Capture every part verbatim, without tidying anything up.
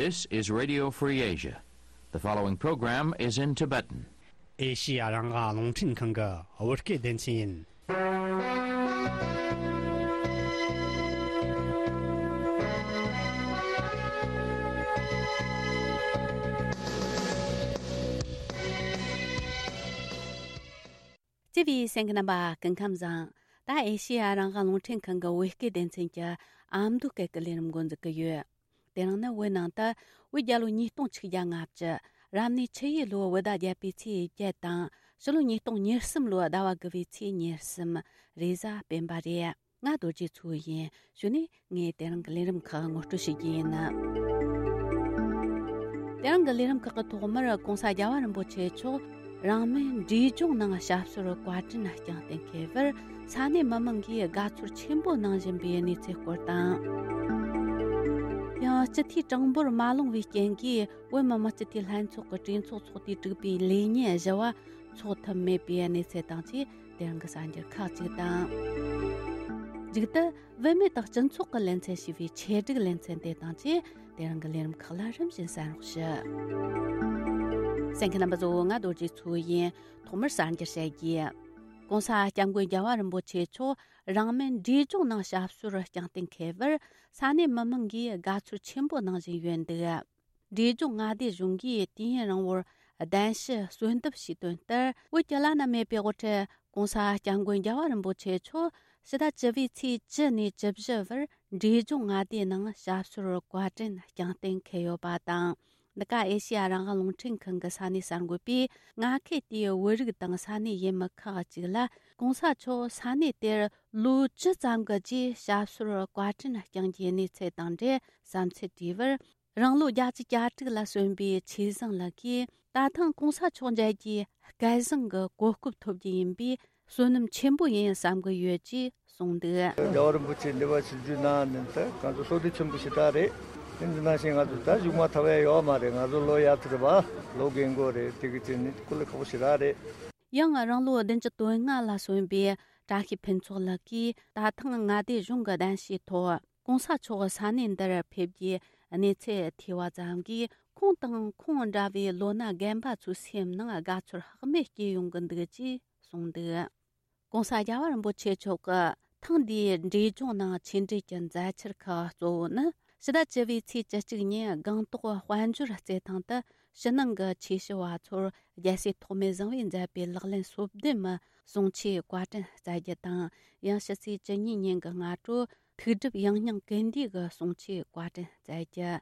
This is Radio Free Asia. The following program is in Tibetan. ཨེ་ཤི་ཡ་རང་དབང་རླུང་འཕྲིན་ཁང་གི་བོད་སྐད་སྡེ་ཚན་ཡིན། བརྩེ་བའི་གསན་མཁན་རྣམ་པ་སྐུ་ཁམས་བཟང་། ད་ཨེ་ཤི་ཡ་རང་དབང་རླུང་འཕྲིན་ཁང་གི་བོད་སྐད་སྡེ་ཚན་གྱི་ཨ་མདོ་སྐད་ཀྱི་ལས་རིམ་འགོ་འཛུགས་ཀྱི་ཡོད། དེ་རིང་ནི་བོད་ནང་དུ་བོད་རྒྱལ་ལོ་ཉིས་སྟོང་ཆིག་བརྒྱ་ལྔ་བཅུ། རབ་གནས་ཆུ་ཡོས་ལོའི་བོད་ཟླ་བརྒྱད་པའི་ཚེས་བརྒྱད་དང་། ཕྱི་ལོ་ཉིས་སྟོང་ཉེར་གསུམ་ལོའི་ཟླ་བ་དགུ་བའི་ཚེས་ཉེར་གསུམ། རེས་གཟའ་སྤེན་པ་རེད། ང་རྡོ་རྗེ་མཚོ་ཡིན། གཞུག་ནས་ངས་དེ་རིང་གི་ལས་རིམ་ཁག་ངོ་སྤྲོད་ཞུ་རྒྱུ་ཡིན། དེ་རིང་གི་ལས་རིམ་ཁག་གི་ཐོག་མར་༸གོང་ས་རྒྱལ་བ་རིན་པོ་ཆེ་མཆོག་རང་མོས་འབྲས་ལྗོངས་ནང་ཞབས་སོར་བཀའ་དྲིན་བསྐྱངས་གཏན་འཁེལ་བར་ས་གནས་མི་མང་གིས་དགའ་ཚོར་ཆེན་པོ་གནང་བཞིན་པའི་གནས་ཚུལ་སྐོར་དང་། ཡང་སྤྱི་འཐུས་གྲངས་འབོར་མ་ལོངས་པའི་རྐྱེན་གྱིས་བོད་མི་མང་སྤྱི་འཐུས་ལྷན་ཚོགས་ཀྱི་གྲོས་ཚོགས་ཚོགས་དུས་དྲུག་པའི་ལས་ཉིན་བཞི་བ་འཚོགས་ཐུབ་མེད་པའི་གནས་ཚུལ་དང་བཅས། དེ་རིང་གི་གསར་འགྱུར་ཁག་ཅིག་དང་། མཇུག་ཏུ་བུད་མེད་དང་སྤྱི་ཚོགས་ཀྱི་ལེ་ཚན་ཞེས་པའི་ཆེད་སྒྲིག་ལེ་ཚན་དེ་དང་བཅས། དེ་རིང་གི་ལས་རིམ་ཁག་ལ་རིམ་བཞིན་གསན་རོགས་ཞུ། གསན་མཁན་རྣམ་པ་ཚོ། ང་རྡོ་རྗེ་མཚོ་ཡིན། ཐོག་མར་གསར་འགྱུར་བཤད་རྒྱུ། ༸གོང་ས་༸སྐྱབས་མགོན་རྒྱལ་བ་རིན་པོ་ཆེ་མཆོག་རང་མོས་འབྲས་ལྗོངས་ནང་ཞབས་སོར་བསྐྱངས་གཏན་འཁེལ་བར་ས་གནས་མི་མང་གིས་དགའ་ཚོར་ཆེན་པོ་གནང་བཞིན་ཡོད་འདུག་འབྲས་ལྗོངས་མངའ་སྡེ་གཞུང་གིས་དུས་ཡུན་རིང་བོར་གདན་ཞུ་གསོལ་འདེབས་ཞུས་དོན་ལྟར། བོད་ཀྱི་བླ་ན་མེད་པའི་དབུ་ཁྲིད་༸གོང་ས་༸སྐྱབས་མགོན་རྒྱལ་བ་རིན་པོ་ཆེ་མཆོག་ཕྱི་ཟླ་བཅུ་པའི་ཚེས་བཅུ་ནས་བཅུ་བཞི་བར་འབྲས་ལྗོངས་མངའ་སྡེའི་ནང་ཞབས་སོར་བཀའ་དྲིན་བསྐྱངས་གཏན་འཁེལ་ཡོད་པ་དང་། འདི་ག་ཨེ་ཤེ་ཡ་རང་དབང་རླུང་འཕྲིན་ཁང་གི་ས་གནས་གསར་འགོད་པས་མངའ་ཁུལ་དེའི་བོད་རིགས་དང་ས་གནས་ཡུལ་མི་ཁག་ཅིག་ལ། ༸གོང་ས་མཆོག་ས་གནས་དེར་ལོ་བཅུ་ཙམ་གྱི་རྗེས་ཞབས་སོར་བཀའ་དྲིན་བསྐྱངས་རྒྱུའི་གནས་ཚུལ་དང་འབྲེལ་བསམ་ཚུལ་དྲིས་པར། རང་ལོ་བརྒྱད་ཅུ་གྱ་དྲུག་ལ་སོན་པའི་ཆོས་བཟང་ལགས་ཀྱིས། ད་ཐེངས་༸གོང་ས་མཆོག་མཇལ་རྒྱུའི་སྐལ་བཟང་གི་གོ་སྐབས་ཐོབ་རྒྱུ་ཡིན་པས། བསོད་ནམས་ཆེན་པོ་ཡིན་བསམ་གྱི་ཡོད་ཅེས་གསུངས་འདུག་རྒྱལ་བ་རིན་པོ་ཆེ་འདི་བ་ཆིབས་བསྒྱུར་གནང་ནས་ད་ང་ཚོ་བསོད་བདེ་ཆེན་པོ་ཞེ་དྲག་རེད། དེ་འདི་ནང་བཞིན་ང་ཚོ་ད་གཞུག་མ་ཐར་བ་ཡོད་མ་རེད། ང་ཚོ་ལོ་ཡར་ཚེ་རེད་པ། ལོ་རྒན་གོག་རེད། དེ་གི་ཅིག་ནི་སྐུ་ལས་ཁག་པོ་ཞེ་དྲག་རེད། ཡང་རང་ལོ་བདུན་ཅུ་དོན་ལྔ་ལ་སོན་པའི་བཀྲ་ཤིས་ཕུན་ཚོགས་ལགས་ཀྱིས། ད་ཐེངས་མངའ་སྡེ་གཞུང་གི་གདན་ཞུའི་ཐོག་༸གོང་ས་མཆོག་ས་གནས་འདིར་ཕེབས་རྒྱུའི་གནས་ཚུལ་ཐོས་པ་ཙམ་གྱིས། ཁོང་དང་ཁོང་འདྲ་བའི་ལོ་ན་རྒན་པ་ཚོའི་སེམས་ནང་དགའ་ཚོར་ལྷག་མེད་སྐྱེས་ཡོང་གི་འདུག་ཅེས་གསུངས་འདུག ༸གོང་ས་རྒྱལ་བ་རིན་པོ་ཆེ་མཆོག་གི་ཐེངས་འདིའི་འབྲས་ལྗོངས་ནང་ཆེད་འགྲེལ་གྱི་མཛད་འཆར་ཁག་གཙོ་བོ་ནི། ཕྱི་ཟླ་བཅུ་པའི་ཚེས་བཅུ་གཅིག་ཉིན་སྒང་ཏོག་དཔལ་འབྱོར་རྩེད་ཐང་དུ་ཕྱི་ནང་གི་ཆོས་ཞུ་བ་ཚོར་རྒྱལ་སྲས་ཐོགས་མེད་བཟང་པོས་མཛད་པའི་ལག་ལེན་སོ་བདུན་མའི་གསུང་ཆོས་བཀའ་དྲིན་སྩལ་རྒྱུ་དང་། ཡང་ཕྱི་ཚེས་བཅུ་གཉིས་ཉིན་གྱི་སྔ་དྲོ་ཐུགས་སྒྲུབ་ཡང་སྙིང་ཀུན་འདུས་ཀྱི་གསུང་ཆོས་བཀའ་དྲིན་སྩལ་རྒྱུ།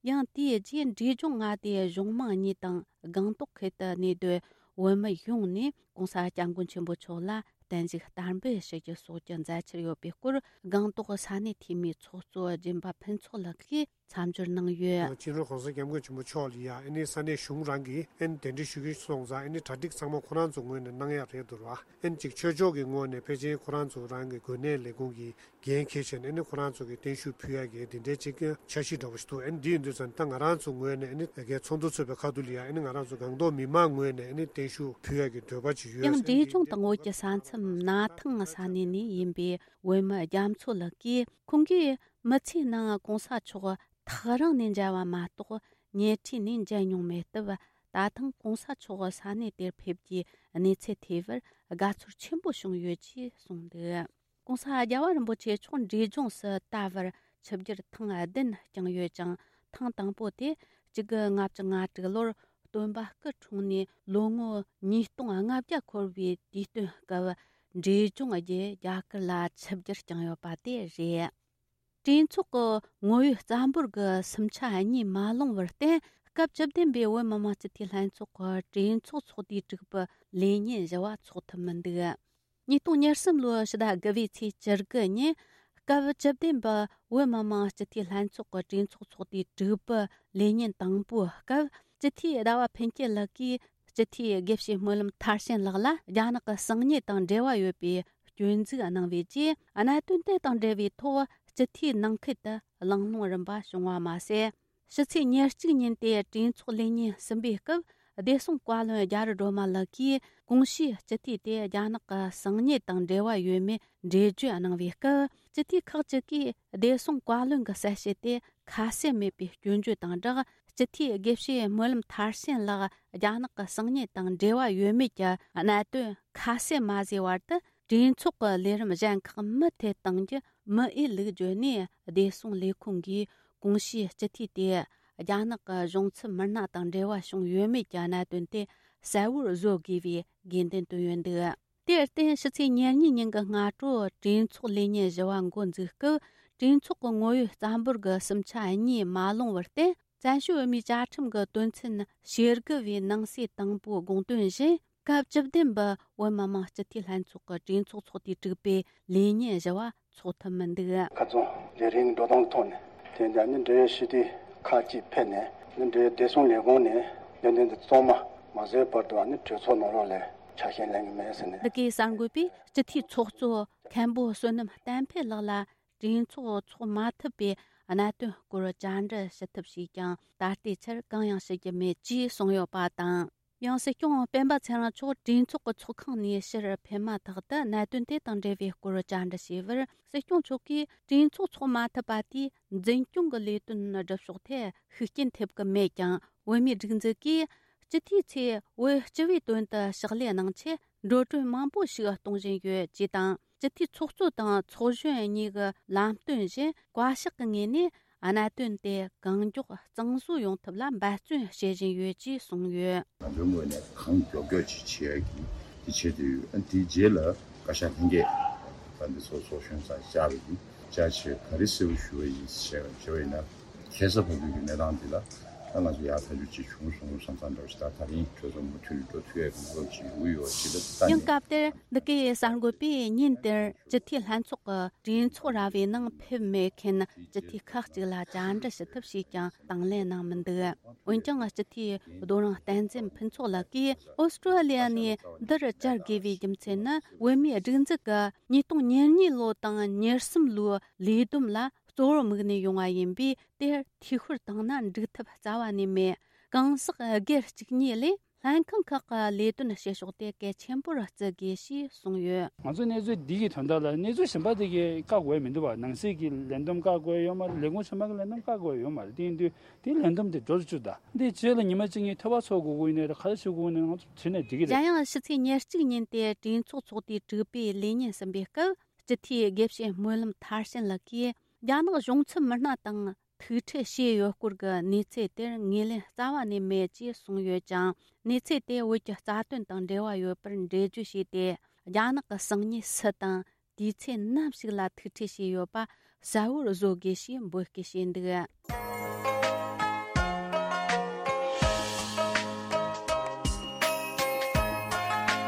ཡང་དེའི་རྗེས་འབྲས་ལྗོངས་མངའ་སྡེའི་གཞུང་མང་གཉིས་དང་སྒང་ཏོག་ཁུལ་དུ་གནས་སྡོད་བོད་མི་ཡོངས་ནས་༸གོང་ས་༸སྐྱབས་མགོན་ཆེན་པོ་མཆོག་ལ་བརྟན་བཞུགས་བསྟར་འབུལ་ཞུ་རྒྱུ་སོགས་ཀྱི་མཛད་འཆར་ཡོད་པའི་སྐོར། སྒང་ཏོག་ས་གནས་འཐུས་མིའི་ཚོགས་གཙོ་སྦྱིན་པ་ཕུན་ཚོགས་ལགས་ཀྱིས་མཚམས་སྦྱོར་གནང་ཡོད། སྤྱི་ནོར་༸གོང་ས་༸སྐྱབས་མགོན་ཆེན་པོ་མཆོག་ལ་ཡ་ཨ་ནི་ས་གནས་གཞུང་རང་གིས་ཨ་ནི་གདན་འདྲེན་ཞུ་གི་སོང་ཙང་། ཨ་ནི་གྲ་སྒྲིག་ཚང་མ་ཁོ་རང་ཚོ་ངོས་ནས་གནང་ཡག་རེད་འདུག་ར། ཨ་ནི་གཅིག་ཆོས་ཕྱོགས་ཀྱི་ངོས་ནས་ཕལ་ཆེར་ཁོ་རང་ཚོ་རང་གི་དགོན་གནས་ལས་ཁུངས་ཀྱི་འགན་འཁྱེར་བྱས་ནས། ཨ་ནི་ཁོ་རང་ཚོ་གི་བརྟན་བཞུགས་ཕུལ་ཡག་གི་འདི་འདྲའི་ཅིག་འཆར་གཞི་འདྲ་པོ་ཞིག་འདུག་ཨ་ནི་འདི་ཡིན་དུས་ཙང་། ད་ང་རང་ཚོ་ངོས་ནས་ཨ་ནི་ཚོགས་འདུ་ཚོགས་པའི་ཁ་ཐུག་ལ་ཡ་ཨ་ནི་ང་རང་ཚོ་སྒང་ཏོག་མི་མང་ངོས་ནས་ཨ་ནི་བརྟན་བཞུགས་ཕུལ་ཡག་གི་འདོད་པ་ཅིག་ཡོད། ཡང་འབྲས་ལྗོངས་དང་བོད་ཀྱི་ས་མཚམས་ན་ཐང་ས་གནས་ནས་ཡིན་པའི་བོད་མི་རྒྱ་མཚོ་ལགས་ཀྱིས། ཁོང་གིས་མི་ཚེའི་ནང་༸གོང་ས་མཆོག་ཐག་རིང་ནས་མཇལ་བ་མ་གཏོགས་ཉེ་འཁྲིས་ནས་མཇལ་མྱོང་མེད་སྟབས། ད་ཐེངས་༸གོང་ས་མཆོག་ས་གནས་དེར་ཕེབས་རྒྱུའི་གནས་ཚུལ་ཐོས་པར་དགའ་ཚོར་ཆེན་པོ་བྱུང་ཡོད་ཅེས་གསུངས་འདུག ༸གོང་ས་རྒྱལ་བ་རིན་པོ་ཆེ་མཆོག་འབྲས་ལྗོངས་སུ་ད་བར་ཆིབས་བསྒྱུར་ཐེངས་བདུན་བསྐྱངས་ཡོད་ཅིང་། ཐེངས་དང་པོ་དེ་གཅིག་དགུ་ལྔ་བཅུ་ང་དྲུག་ལོར་སྟོན་པ་སྐུ་འཁྲུངས་ནས་ལོ་ངོ་ཉིས་སྟོང་ལྔ་བརྒྱ་འཁོར་བའི་དུས་སྟོན་སྐབས། འབྲས་ལྗོངས་བརྒྱུད་རྒྱ་གར་ལ་ཆིབས་བསྒྱུར་བསྐྱངས་ཡོད་པ་དེ་རེད། གྲོས་ཚོགས་ཀྱི་ངོ་བོའི་རྩ་འབོར་གྱི་སུམ་ཆ་གཉིས་མ་ལོངས་པར་བརྟེན། སྐབས་བཅུ་བདུན་པའི་བོད་མི་མང་སྤྱི་འཐུས་ལྷན་ཚོགས་ཀྱི་གྲོས་ཚོགས་ཚོགས་དུས་དྲུག་པའི་ལས་ཉིན་བཞི་བ་འཚོགས་ཐུབ་མི་འདུག་ཉིས་སྟོང་ཉེར་གསུམ་ལོའི་ཕྱི་ཟླ་དགུ་པའི་ཚེས་བཅུ་དགུ་ཉིན། སྐབས་བཅུ་བདུན་པའི་བོད་མི་མང་སྤྱི་འཐུས་ལྷན་ཚོགས་ཀྱི་གྲོས་ཚོགས་ཚོགས་དུས་དྲུག་པའི་ལས་ཉིན་དང་པོའི་སྐབས། སྤྱི་འཐུས་ཟླ་བ་ཕུན་སྐྱིད་ལགས་ཀྱིས་སྤྱི་འཐུས་དགེ་བཤེས་སྨོན་ལམ་མཐར་ཕྱིན་ལགས་ལ་རྒྱ་ནག་གི་གསང་ཉུལ་དང་འབྲེལ་བ་ཡོད་པའི་སྐྱོན་འཛུགས་གནང་བའི་རྗེས། གནད་དོན་དེ་དང་འབྲེལ་བའི་ཐོག་སྤྱི་འཐུས་ནང་ཁུལ་དུ་གླེང་སློང་རིམ་པ་བྱུང་བ་མ་ཟད། ཕྱི་ཚེས་ཉེར་གཅིག་ཉིན་ཏེ་གྲོས་ཚོགས་ལས་ཉིན་གསུམ་པའི་སྐབས། བདེ་སྲུང་བཀའ་བློན་རྒྱ་རི་སྒྲོལ་མ་ལགས་ཀྱིས་གོང་ཞུས་སྤྱི་འཐུས་དེ་རྒྱ་ནག་གི་གསང་ཉུལ་དང་འབྲེལ་བ་ཡོད་མེད་འགྲེལ་བརྗོད་གནང་བའི་སྐབས། སྤྱི་འཐུས་ཁག་ཅིག་གིས་བདེ་སྲུང་བཀའ་བློན་གྱི་གསལ་བཤད་དེ་ཁ་གསལ་མེད་པའི་སྐྱོན་བརྗོད་དང་སྦྲགས། སྤྱི་འཐུས་དགེ་བཤེས་སྨོན་ལམ་མཐར་ཕྱིན་ལགས་རྒྱ་ནག་གི་གསང་ཉུལ་དང་འབྲེལ་བ་ཡོད་མེད་ཀྱི་གནད་དོན་ཁ་གསལ་མ་བཟོས་བར་དུ། གྲོས་ཚོགས་ཀྱི་ལས་རིམ་གཞན་ཁག་མུ་མཐུད་གཏོང་རྒྱུ་མི་འོས་ལུགས་བརྗོད་ནས། བདེ་སྲུང་ལས་ཁུངས་ཀྱིས་གོང་ཞུས་སྤྱི་འཐུས་དེ་རྒྱ་ནག་གི་གཞུང་ཚབ་མི་སྣ་དང་འབྲེལ་བ་བྱུང་ཡོད་མེད་ཀྱི་གནད་དོན་དེ་གསལ་བོར་བཟོ་དགོས་པའི་དགོས་འདུན་བཏོན་ཡོད་འདུག་དེར་བརྟེན། ཕྱི་ཚེས་ཉེར་གཉིས་ཉིན་གྱི་སྔ་དྲོ་གྲོས་ཚོགས་ལས་ཉིན་བཞི་བ་འགོ་འཛུགས་སྐབས། གྲོས་ཚོགས་ཀྱི་ངོ་ཡོད་རྩ་འབོར་གྱི་གསུམ་ཆ་གཉིས་མ་ལོངས་པར་བརྟེན། བཙན་བྱོལ་བོད་མིའི་བཅའ་ཁྲིམས་ཀྱི་དོན་ཚན་ཞེ་དགུ་བའི་ནང་གསེས་དང་པོའི་དགོངས་དོན་བཞིན། སྐབས་བཅུ་བདུན་པའི་བོད་མི་མང་སྤྱི་འཐུས་ལྷན་ཚོགས་ཀྱི་གྲོས་ཚོགས་ཚོགས་དུས་དྲུག་པའི་ལས་ཉིན་བཞི་བ་འཚོགས་ཐུབ་མི་འདུག་ཁ་རྩང་ལས་རིམ་འགྲོ་སྟངས་ཐོག་ནས། དེ་འདྲ་ནི་འབྲེལ་ཡོད་སྤྱི་འཐུས་ཁག་ཅིག་ཕེབས་ནས། ནི་འབྲེལ་ཡོད་བདེ་སྲུང་ལས་ཁུངས་ནས་ལས་དོན་འདི་གཙང་མ་མ་བཟོས་བར་དུ་ནི་གྲོས་ཚོགས་ནང་ལོགས་ལ་ཆ་ཤས་ལེན་གྱི་མེད་ཟེར་ནས། འདི་གའི་གསར་འགོད་པས་སྤྱི་འཐུས་ཚོགས་གཙོ་མཁན་པོ་བསོད་ནམས་བསྟན་འཕེལ་ལགས་ལ། གྲོས་ཚོགས་འཚོགས་མ་ཐུབ་པའི་གནད་དོན་སྐོར་བཅར་འདྲི་ཞུ་ཐབས་བྱས་ཀྱང་། ད་ལྟའི་ཆར་གང་ཡང་ཞུ་རྒྱུ་མེད་ཅེས་གསུངས་ཡོད་པ་དང་། ཡང་སྲིད་སྐྱོང་སྤེན་པ་ཚེ་རིང་མཆོག་གྲོས་ཚོགས་ཀྱི་ཚོགས་ཁང་ནས་ཕྱིར་ཕེབས་མ་ཐག་ཏུ། གནད་དོན་དེ་དང་འབྲེལ་བའི་སྐོར་བཅར་འདྲི་བྱས་པར། སྲིད་སྐྱོང་མཆོག་གིས་གྲོས་ཚོགས་འཚོགས་མ་ཐུབ་པ་དེས་འཛིན་སྐྱོང་གི་ལས་དོན་སྒྲུབ་ཕྱོགས་ཐད་ཤུགས་རྐྱེན་ཐེབས་ཀྱི་མེད་ཀྱང་། བོད་མིའི་སྒྲིག་འཛུགས་ཀྱིས་སྤྱི་འཐུས་ཚོས་བོད་སྤྱི་པའི་དོན་དུ་ཕྱག་ལས་གནང་ཆེད། འགྲོ་གྲོན་མང་པོ་ཞིག་གཏོང་བཞིན་ཡོད་ཅེས་དང་། སྤྱི་འཐུས་ཚོགས་གཙོ་དང་ཚོགས་གཞོན་གཉིས་ཀྱི་ལམ་སྟོན་བཞིན། བཀའ་ཤག་གི་ངོས་ནས་གནད་དོན་དེ་གང་མགྱོགས་གཙང་བཟོ་ཡོང་ཐབས་ལ་འབད་བརྩོན་བྱེད་བཞིན་ཡོད་ཅེས་གསུངས་ཡོད། ང་ཚོའི་ངོས་ནས་གང་མགྱོགས་མགྱོགས་ཅིག་བྱེད་ཡག་གི་དེ་བྱེད་དུ་ཡོད། ཨ་དེའི་རྗེས་ལ་བཀའ་ཤག་ལྷན་རྒྱས་ད་འདི་ཚོ་ཚོགས་གཞོན་ཚང་བཅར་བ་ཡིན། བཅར་བྱས་ག་རེ་གསལ་པོ་ཞུ་བ་ཡིན་ཞེས་པ་ཞུ་བ་ཡིན་ན། ཁ་སང་བར་དུ་གི་གནས་སྟངས་འདི་ལ་ད་ང་ཚོ་ཡར་ཐག་གཅོད་ཅིག་བྱུང་སོང་བསམ་བསམ་འདྲ་བ་ཞིག་ད་ད་རིང་གྲོས་ཚོགས་མུ་མཐུད་ནས་འགྲོ་ཐུབ་ཡག་གི་བཟོ་ཅིག་ཡོང་གི་ཡོད་ཅེས་ད་ལྟ་ཡང་ནས། སྐབས་དེར་འདི་གའི་གསར་འགོད་པས་ཉིན་དེར་སྤྱི་འཐུས་ལྷན་ཚོགས་ཀྱི་གྲོས་ཚོགས་ར་བའི་ནང་ཕེབས་མེད་མཁན་སྤྱི་འཐུས་ཁག་ཅིག་ལ་བཅར་འདྲི་ཞུ་ཐབས་བྱས་ཀྱང་དང་ལེན་གནང་མི་འདུག་འོན་ཀྱང་སྤྱི་འཐུས་རྡོ་རིང་བསྟན་འཛིན་ཕུན་ཚོགས་ལགས་ཀྱིས་ཨོ་སི་ཀྲོ་ལི་ཡ་ནས་འདིར་བཅར་དགོས་པའི་རྒྱུ་མཚན་ནི། བོད་མིའི་སྒྲིག་འཛུགས་ཀྱི་ཉིས་སྟོང་ཉེར་གཉིས་ལོ་དང་ཉེར་གསུམ་ལོའི་ལས་བསྡོམས་ལ་གཙོ་བོར་དམིགས་ནས་ཡོང་བ་ཡིན་པས། དེར་འཐུས་ཤོར་བཏང་ན་འགྲིག་ཐབས་རྩ་བ་ནས་མེད། གང་ཟག་སྒེར་གཅིག་གཉིས་ལས་ལྷན་ཁང་ཁག་གི་ལས་དོན་བྱེད་ཕྱོགས་དེ་གལ་ཆེན་པོར་བརྩི་དགོས་ཞེས་གསུངས་ཡོད། ང་ཚོ་གནས་ཚུལ་འདི་གི་དོན་དག་ལ་གནས་ཚུལ་གཞན་པ་དེ་གའི་བཀག་དགོས་མི་འདུག་བ། ནང་སྲིད་ཀྱི་ལས་བསྡོམས་བཀག་དགོས་ཡོད་མ་རེད། ལས་ཁུངས་གཞན་པ་གི་ལས་བསྡོམས་བཀག་དགོས་ཡོད་མ་རེད། དེ་ཡིན་དུས་དེའི་ལས་བསྡོམས་དེ་འགྲོ་རུ་བཅུག་ད། འདིའི་རྗེས་ལ་ཉི་མ་གཅིག་གཉིས་ཐོས་པ་ཚོགས་དགོས་ཀྱི་ཡིན་ནའི་རེད། ག་རེ་བྱེད་དགོས་ཀྱི་ཡིན་ནའི་ང་ཚོ་བྲིས་ནས་འགྲིག་གི་རེད། གཞན་ཡང་ཕྱི་ཚེས་ཉེར་གཅིག་ཉིན་ཏེ་གྲོས་ཚོགས་ཚོགས་དུས་དྲུག་པའི་ལས་ཉིན་ཟིན་པའི་སྐབས། སྤྱི་འཐུས་དགེ་བཤེས་སྨོན་ལམ་མཐར་ཕྱིན་ལགས་ཀྱིས་རྒྱ་ནག་གཞུང་ཚབ་མི་སྣ་དང་ཐུག་འཕྲད་བྱས་ཡོད་སྐོར་གྱི་གནས་ཚུལ་དེར་ངོས་ལེན་རྩ་བ་ནས་མེད་ཅེས་གསུངས་ཡོད་ཀྱང་། གནས་ཚུལ་དེ་བོད་ཀྱི་རྩ་དོན་དང་འབྲེལ་བ་ཡོད་པར་འགྲེལ་བརྗོད་བྱས་ཏེ། རྒྱ་ནག་གི་གསང་ཉུལ་སུ་དང་དུས་ཚོད་ནམ་ཞིག་ལ་ཐུག་འཕྲད་བྱས་ཡོད་པ་གསལ་བོར་བཟོ་དགོས་ཞེས་འབོད་སྐུལ་བྱས་འདུག་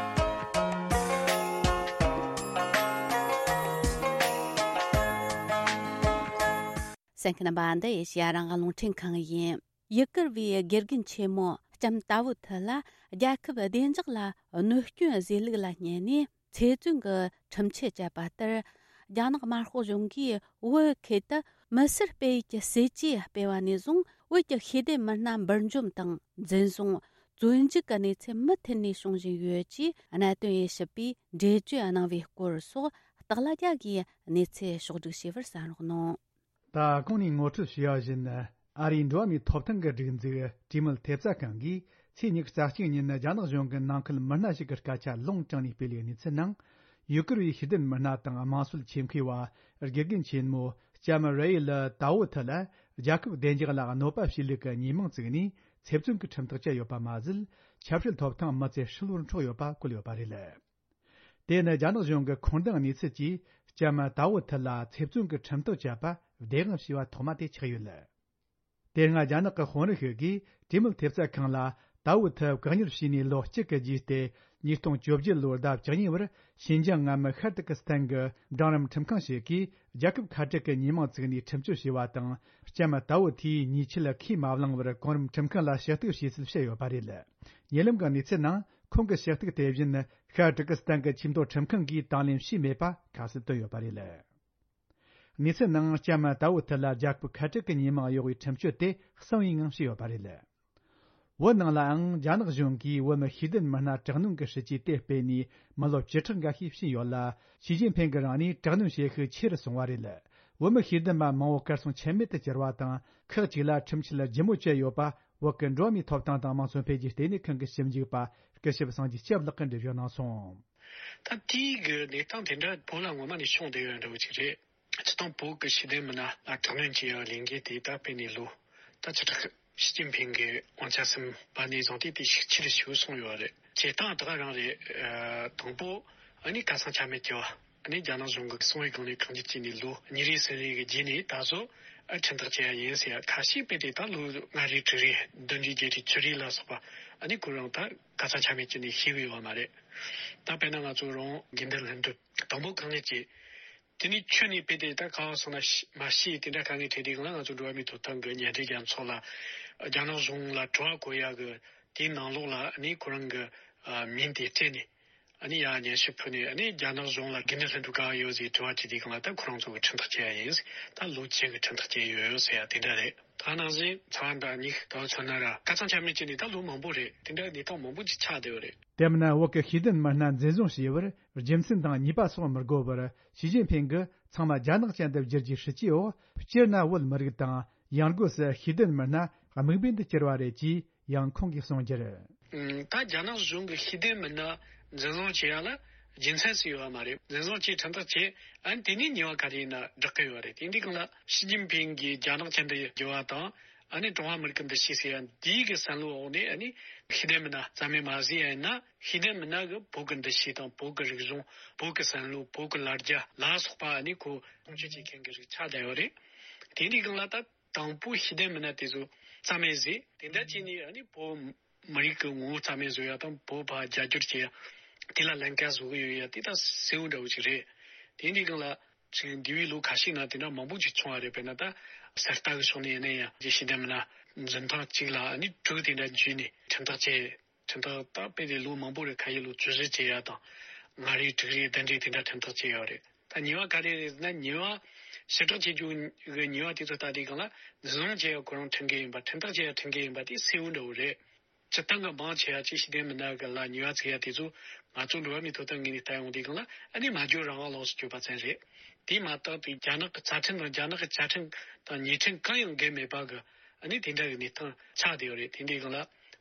གསན་མཁན་རྣམ་པ། འདི་ཨེ་ཤེ་ཡ་རང་དབང་རླུང་འཕྲིན་ཁང་ཡིན། ཡུ་གུར་བའི་དགེ་རྒན་ཆེན་མོ་ལྕམ་ཏཱ་བུ་ཐི་ལ་རྒྱལ་ཁབ་བདེ་འཇགས་ལ་གནོད་སྐྱོན་བཟོས་ལུགས་ལ་བརྙས་ནས་ཚེ་བཙོན་གྱི་ཁྲིམས་ཆད་བཅད་པ་ལྟར། རྒྱ་ནག་དམར་ཤོག་གཞུང་གིས་བོད་ཁུལ་དུ་མི་སེར་སྤེལ་ཡུལ་གྱི་སྲིད་ཇུས་སྤེལ་བ་ནས་བཟུང་། བོད་ཀྱི་ཤེས་ལྡན་མི་སྣ་འབུར་འཇོམས་དང་འཛིན་བཟུང་། བཙོན་འཇུག་གི་གནས་ཚུལ་མུ་མཐུད་ནས་བྱུང་བཞིན་ཡོད་ཅེས་གནད་དོན་དབྱེ་ཞིབ་པས་འགྲེལ་བརྗོད་གནང་བའི་སྐོར་སོགས་སྟག་ལྷ་རྒྱལ་གྱིས་གནས་ཚུལ་ཕྱོགས་བསྒྲིགས་བྱས་པར་གསན་རོགས་གནང་། ད་གོང་ནས་ངོ་སྤྲོད་བྱས་པ་བཞིན། ཨ་རིའི་འགྲོ་བ་མིའི་ཐོབ་ཐང་གི་སྒྲིག་འཛུགས་གྲོས་མོལ་ཐེབས་རྩ་ཁང་གིས་ཚེས་ཉི་ཤུ་རྩ་གཅིག་ཉིན་རྒྱ་ནག་གཞུང་གི་ནང་ཁུལ་མི་སྣ་ཞིག་གི་སྐད་ཆ་ལུང་དྲངས་ནས་སྤེལ་བའི་གནས་ཚུལ་ནང་། ཡུ་གུར་བའི་ཤེས་ལྡན་མི་སྣ་དང་དམངས་སྲོལ་ཆེད་མཁས་པ་དགེ་རྒན་ཆེན་མོ་ལྕམ་རེ་ཡི་ལི་ཏཱ་ཝུ་ཐི་ལ་རྒྱལ་ཁབ་བདེ་འཇགས་ལ་གནོད་པ་བྱས་ལུགས་ཀྱི་ཉེས་མིང་བཙུགས་ནས་ཚེ་བཙོན་གྱི་ཁྲིམས་ཐག་བཅད་ཡོད་པ་མ་ཟད། ཆབ་སྲིད་ཐོབ་ཐང་མི་ཚེ་ཧྲིལ་བོར་འཕྲོག་ཡོད་པ་བཀོད་ཡོད་པ་རེད། དེ་ནི་རྒྱ་ནག་གཞུང་གི་ཁུངས་ལྡན་གནས་ཚུལ་གྱིས་ལྕམ་ཏཱ་ཝུ་ཐི་ལ་ཚེ་བཙོན་གྱི་ཁྲིམས་ཐག་བཅད་པ་བདེན་དཔང་བྱས་པ་ཐོག་མ་དེ་ཆགས་ཡོད། དེ་སྔ་རྒྱ་ནག་གི་དཔོན་རིགས་ཤིག་གིས་གྲོས་མོལ་ཐེབས་རྩ་ཁང་ལ་ཏཱ་ཝུ་ཐི་བཀག་ཉར་བྱས་ནས་ལོ་གཅིག་གི་རྗེས་ཏེ། ཉིས་སྟོང་བཅོ་བརྒྱད་ལོའི་ཟླ་བཅུ་གཉིས་པར་ཤིན་ཅང་མངའ་མི་ཤར་ཏུར་ཀི་སི་ཐན་གྱི་འབྲིང་རིམ་ཁྲིམས་ཁང་ཞིག་གིས་རྒྱལ་ཁབ་ཁ་བྲལ་གྱི་ཉེས་མིང་བཙུགས་ནས་ཁྲིམས་གཅོད་བྱས་པ་དང་། ལྕམ་ཏཱ་ཝུ་ཐིས་ཉེས་ཆད་ཁས་མ་བླངས་པར་གོང་རིམ་ཁྲིམས་ཁང་ལ་ཞུ་གཏུག་བྱས་ཚུལ་བཤད་ཡོད་པ་རེད། ཉེ་ལམ་གྱི་གནས་ཚུལ་ནང་། ཁོང་གི་ཞུ་གཏུག་དེ་བཞིན་ཤར་ཏུར་ཀི་སི་ཐན་གྱི་ཆེས་མཐོའི་ཁྲིམས་ཁང་གིས་དང་ལེན་བྱས་མེད་པ་ཁ་གསལ་བཏོན་ཡོད་པ་རེད། གནས་ཚུལ་ནང་ལྕམ་ཏཱ་ཝུ་ཐི་ལ་རྒྱལ་ཁབ་ཁ་བྲལ་གྱི་ཉེས་མིང་གཡོག་པའི་ཁྲིམས་གཅོད་དེ་གསང་བའི་ངང་བྱས་ཡོད་པ་རེད། བོད་ནང་ལའང་རྒྱ་ནག་གཞུང་གིས་བོད་མི་ཤེས་ལྡན་མི་སྣ་དྲག་གནོན་གྱི་སྲིད་ཇུས་དེ་སྤེལ་ནས་མི་ལོ་བཅུ་ཕྲག་འགའ་ཤས་ཕྱིན་ཡོད་ལ། ཞི་ཅིན་ཕིང་གིས་རང་ནས་དྲག་གནོན་བྱེད་ཤུགས་ཆེ་རུ་སོང་བ་རེད། བོད་མི་ཤེས་ལྡན་པ་མང་བོ་གར་སོང་ཆ་མེད་དུ་གྱུར་བ་དང་། ཁག་ཅིག་ལ་ཁྲིམས་ཆད་ལྗིད་མོ་བཅད་ཡོད་པ། བོད་ཀྱི་འགྲོ་བ་མིའི་ཐོབ་ཐང་དང་དམངས་གཙོ་འཕེལ་རྒྱས་ལྟེ་གནས་ཁང་གི་ཞིབ་འཇུག་པ་སྐུ་ཞབས་སངས་རྒྱས་སྐྱབས་ལགས་ཀྱིས་འགྲེལ་བརྗོད་གནང་སོང་། ད་དེའི་གི་གནས་སྟངས་དེ་འདྲ་བོད་ལ་ངོ་མ་ནས་བྱུང་བསྡད་ཡོད་འདྲ་བོ་ཅིག་རེད། སྤྱིར་བཏང་བོད་ཀྱི་ཤེས་ལྡན་མི་སྣ་ལ་དྲག་གནོན་བྱེད་ཡག་ལས་འགུལ་དེ་ད་སྤེལ་ནས་ལོ་ད་ཆ་ཁྲག་ཞི་ཅིན་ཕིང་གི་དབང་ཆ་ཟིན་པ་ནས་བཟུང་སྟེ་དེ་ཤུགས་ཆེ་རུ་ཞིག་སོང་ཡོད་རེད། བྱེད་སྟངས་ད་ག་རང་རེད། ཨ། དང་པོ་ཨ་ནི་ཁ་སང་ཆ་མེད་ཀྱི་བ་ཨ་ནི་རྒྱ་ནག་གཞུང་གི་གསང་བའི་སྒང་ནས་ཁག་འཇིགས་བྱས་ནས་ལོ་གཉིས་རེ་གསུམ་རེ་གི་རྗེས་ནས་ད་གཟོད་ཨ་ཁྲིམས་ཐག་བཅད་ཡ་ཡིན་ཟེར་ཡ་ཁ་ཤས་སྤེལ་ཏེ། ད་ལོ་ལྔ་རེ་དྲུག་རེ་བདུན་རེ་བརྒྱད་རེ་བཅུ་རེ་ལ་སོགས་པ་ཨ་ནི་ཁོ་རང་ད་ཁ་སང་ཆ་མེད་བྱས་ནས་ཤི་བའི་བ་མ་རེད། ད་དཔེར་ན་ང་ཚོ་རང་དགེ་འདུན་ལྷུན་གྲུབ་དང་པོ་གང་ནས་བྱས། དེ་ནས་ཁྱོན་ནས་སྤེལ་ཏེ་ད་ག་བ་སོང་ན་ཤི་མ་ཤི་དེ་འདྲ་དཀའ་ངལ་འཕྲད་དུས་སྒང་ལ་ང་ཚོ་འགྲོ་བ་མིའི་ཐོབ་ཐང་གི་མཉམ་འབྲེལ་རྒྱལ་ཚོགས་ལ་རྒྱ་ནག་གཞུང་ལ་དྲི་བ་བཀོད་ཡག་གི་དེའི་ནང་ལོགས་ལ་ཨ་ནི་ཁོ་རང་གི་ཨ་མིང་དེ་སྤྲད་ནས་ཨ་ནི་ཡར་སྙན་ཞུ་ཕུལ་ནས། ཨ་ནི་རྒྱ་ནག་གཞུང་ལ་དགེ་འདུན་ལྷུན་གྲུབ་ག་བ་ཡོད་ཟེར་དྲི་བ་དྲིས་དུས་སྒང་ལ་ད་ཁོ་རང་ཚོ་གི་ཁྲིམས་ཐག་བཅད་ཡ་ཡིན་ཟེར། ད་ལོ་བཅུ་གི་ཁྲིམས་ཐག་བཅད་ཡོད་ཟེར་ཡ་དེ་འདྲ་རེད། ད་ནང་བཞིན་ཚ་བ་འདྲ་གཉིས་ད་མཚོན་ན་ར་ཁ་སང་ཆ་མེད་བྱས་ནས་ད་ལོ་མང་པོ་རེད། དེ་འདྲ་གནས་སྟངས་མང་པོ་ཅིག་ཆགས་བསྡད་ཡོད་རེད། དེ་མིན་བོད་ཀྱི་ཤེས་ལྡན་མི་སྣ་འཛིན་བཟུང་བྱས་པར་རྒྱུ་མཚན་དང་ཉེས་པ་སོགས་མི་དགོས་པར་ཞི་ཅིན་ཕིང་གིས་ཚང་མ་རྒྱ་ནག་ཅན་དུ་བསྒྱུར་རྒྱུའི་སྲིད་ཇུས་འོག་སྤྱིར་ན་བོད་མི་རིགས་དང་ཡང་སྒོས་སུ་ཤེས་ལྡན་མི་སྣ་དམིགས་འབེན་དུ་གྱུར་བ་རེད་ཅེས་ཡང་ཁོང་གིས་གསུངས་རྒྱུར། ད་རྒྱ་ནག་གཞུང་གིས་ཤེས་ལྡན་མི་སྣ་འཛིན་བཟུང་བྱེད་ཡ་ལ་རྒྱུ་མཚན་ཞིག་ཡོད་པ་མ་རེད། འཛིན་བཟུང་བྱས་ཁྲིམས་ཐག་བཅད། ཨ་ནི་དེ་ནས་ཉེས་པ་ག་རེ་ཡིན་ན་བསྒྲག་གི་ཡོད་རེད། དེ་འདྲའི་སྒང་ལ་ཞི་ཅིན་ཕིང་གིས་རྒྱ་ནག་ཅན་དུ་བསྒྱུར་བ་དང་། ཨ་ནི་ཀྲུང་ཧྭ་མི་རིགས་ཀྱི་འདུ་ཤེས་ཟེར་ཡ་འདིའི་གི་བསམ་བློའི་འོག་ནས་ཨ་ནི་ཤེས་ལྡན་མི་སྣ་རྩ་མེད་མ་བཟོས་ཡ་ཡིན་ན། ཤེས་ལྡན་མི་སྣ་གི་བོད་ཀྱི་འདུ་ཤེས་དང་བོད་ཀྱི་རིག་གཞུང་། བོད་ཀྱི་བསམ་བློ། བོད་ཀྱི་ལ་རྒྱ་ལ་སོགས་པ་ཨ་ནི་ཁོ་སྲུང་སྐྱོབ་བྱེད་མཁན་གྱི་རིགས་ཆགས་བསྡད་ཡོད་རེད། དེ་འདྲའི་སྒང་ལ་ད་དང་པོ་ཤེས་ལྡན་མི་སྣ་དེ་ཚོ་རྩ་མེད་བཟོས། དེ་འདྲ་བྱས་ནས་ཨ་ནི་བོད་མི་རིགས་ཀྱི་ངོ་བོ་རྩ་མེད་བཟོ་ཡ་དང་། བོད་ཕར་རྒྱ་སྒྱུར་བྱེད་ཡ། དེ་ལ་ལམ་ཁ་བཟོ་གི་ཡོད་ཡ་དེ་ད་གསལ་བོ་འདྲ་བོ་ཅིག་རེད། དེ་འདྲའི་སྒང་ལ་ཅིག་འདས་པའི་ལོ་ཁ་ཤས་ནང་དེ་འདྲ་མང་པོ་ཅིག་བྱུང་བ་རེད། དཔེར་ན་ད་གསར་རྟ་གི་ཕྱོགས་ནས་ཡིན་ན་ཡང་ཤེས་ལྡན་མི་སྣ་འཛིན་སྟངས་གཅིག་ལ་ཨ་ནི་དྲུག་དེ་འདྲ་འཇུས་ནས་ཁྲིམས་ཐག་བཅད། ཁྲིམས་ཐག་ད་སྤེལ་ཏེ་ལོ་མང་པོ་རེད། ཁ་ཤས་ལོ་བཅུ་བཞི་བྱེད་ཡ་དང་། ལྔ་རེ་དྲུག་རེ་བདུན་རེ་དེ་འདྲ་ཁྲིམས་ཐག་བཅད་ཡོད་རེད། ད་ཉེས་པ་ག་རེ་རེད་ཟེར་ན། ཉེས་པ་ཞི་དྲག་བྱེད་རྒྱུ་གི་ཉེས་པ་དེ་ཚོ་ལྟ་དུས་སྒང་ལ་འཛིན་བཟུང་བྱེད་ཡ་ཁོ་རང་ཁྲིམས་འགལ་ཡིན་པ། ཁྲིམས་ཐག་བཅད་ཡ་ཁྲིམས་འགལ་ཡིན་པ་དེ་གསལ་བོ་འདྲ་བོ་རེད། སྤྱིར་བཏང་གི་མང་ཆེ་བ་ཅིག་ཤེས་ལྡན་མི་སྣ་གི་ལ་ཉེས་པ་བཙུགས་ཡ་དེ་ཚོ་ང་ཚོ་འགྲོ་བ་མིའི་ཐོབ་ཐང་ངོས་ནས་ལྟ་ཡོང་དུས་སྒང་ལ་ཨ་ནི་སྨྲ་བརྗོད་རང་དབང་ལོགས་སུ་གྱུར་པ་ཙམ་རེད། དེ་མ་གཏོགས་དེ་རྒྱ་ནག་གི་རྩ་ཁྲིམས་དང་རྒྱ་ནག་གི་བཅའ་ཁྲིམས་དང་ཉེས་ཁྲིམས་གང་ཡང་འགལ་མེད་པ་གི་ཨ་ནི་དེ་འདྲ་གི་གནས་སྟངས་ཆགས་བསྡད་ཡོད་རེད། དེ་འདྲའི་སྒང་ལ་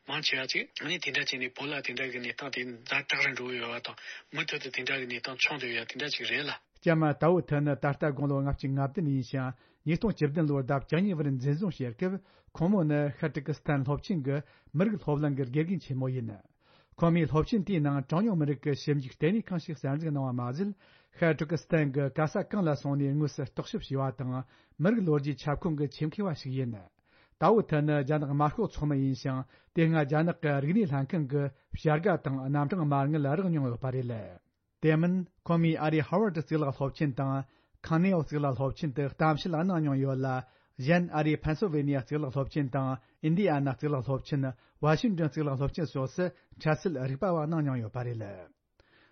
མང་ཆེ་བ་ཅིག་ཨ་ནི་དེ་འདྲ་བྱས་ནས་བོད་ལ་དེ་འདྲ་གི་གནས་སྟངས་དེ་ཛ་དྲག་རུ་འགྲོ་གི་ཡོད་པ་དང་། མུ་མཐུད་དུ་དེ་འདྲ་གི་གནས་སྟངས་བྱུང་བསྡད་ཡོད་དེ་འདྲ་ཅིག་རེད་ལ། ལྕམ་ཏའོ་ཐི་ནི་ད་ལྟ་དགུང་ལོ་ལྔ་བཅུ་ང་བདུན་ཡིན་ཞིང་། ཉིས་སྟོང་བཅུ་བདུན་ལོར་ཟླ་བཅུ་གཉིས་པར་འཛིན་བཟུང་བྱས་སྐབས། ཁོང་མོ་ནི་ཤར་ཏུར་ཀི་སི་ཐན་སློབ་ཆེན་གྱི་མི་རིགས་སློབ་གླིང་གི་དགེ་རྒན་ཆེན་མོ་ཡིན། ཁོང་མོས་སློབ་ཆེན་དེའི་ནང་གྲངས་ཉུང་མི་རིགས་ཀྱི་ཞིབ་འཇུག་ལྟེ་གནས་ཁང་ཞིག་གསར་འཛུགས་གནང་བ་མ་ཟད། ཤར་ཏུར་ཀི་སི་ཐན་གྱི་ག་ས་གང་ལ་སོང་ནས་དངོས་སུ་རྟོག་ཞིབ་བྱས་པ་དང་། མི་རིགས་ལོ་རྒྱུས་ཁྱབ་ཁོངས་ཀྱི་ཆེད་མཁས་པ་ཞིག་ཡིན། ཏའོ་ཐི་ནི་རྒྱ་ནག་དམར་ཤོག་ཚོགས་མི་ཡིན་ཞིང་། དེ་སྔ་རྒྱ་ནག་གི་རིག་གནས་ལྷན་ཁང་གི་བྱ་དགའ་དང་རྣམ་གྲངས་མ་དངུལ་རག་མྱོང་ཡོད་པ་རེད། དེ་མིན་ཁོང་མོས་ཨ་རིའི་ཧར་ཝར་ཌི་གཙུག་ལག་སློབ་ཆེན་དང་། ཁང་ནེའོ་གཙུག་ལག་སློབ་ཆེན་དུ་གཏམ་བཤད་གནང་མྱོང་ཡོད་ལ། གཞན་ཨ་རིའི་ཕེན་སིལ་ཝེ་ནི་ཡ་གཙུག་ལག་སློབ་ཆེན་དང་། ཨིན་ཌི་ཨ་ན་གཙུག་ལག་སློབ་ཆེན། ཝ་ཤིང་ཏོན་གཙུག་ལག་སློབ་ཆེན་སོགས་སུ་འཕྲལ་སེལ་རིག་པ་བ་གནང་མྱོང་ཡོད་པ་རེད།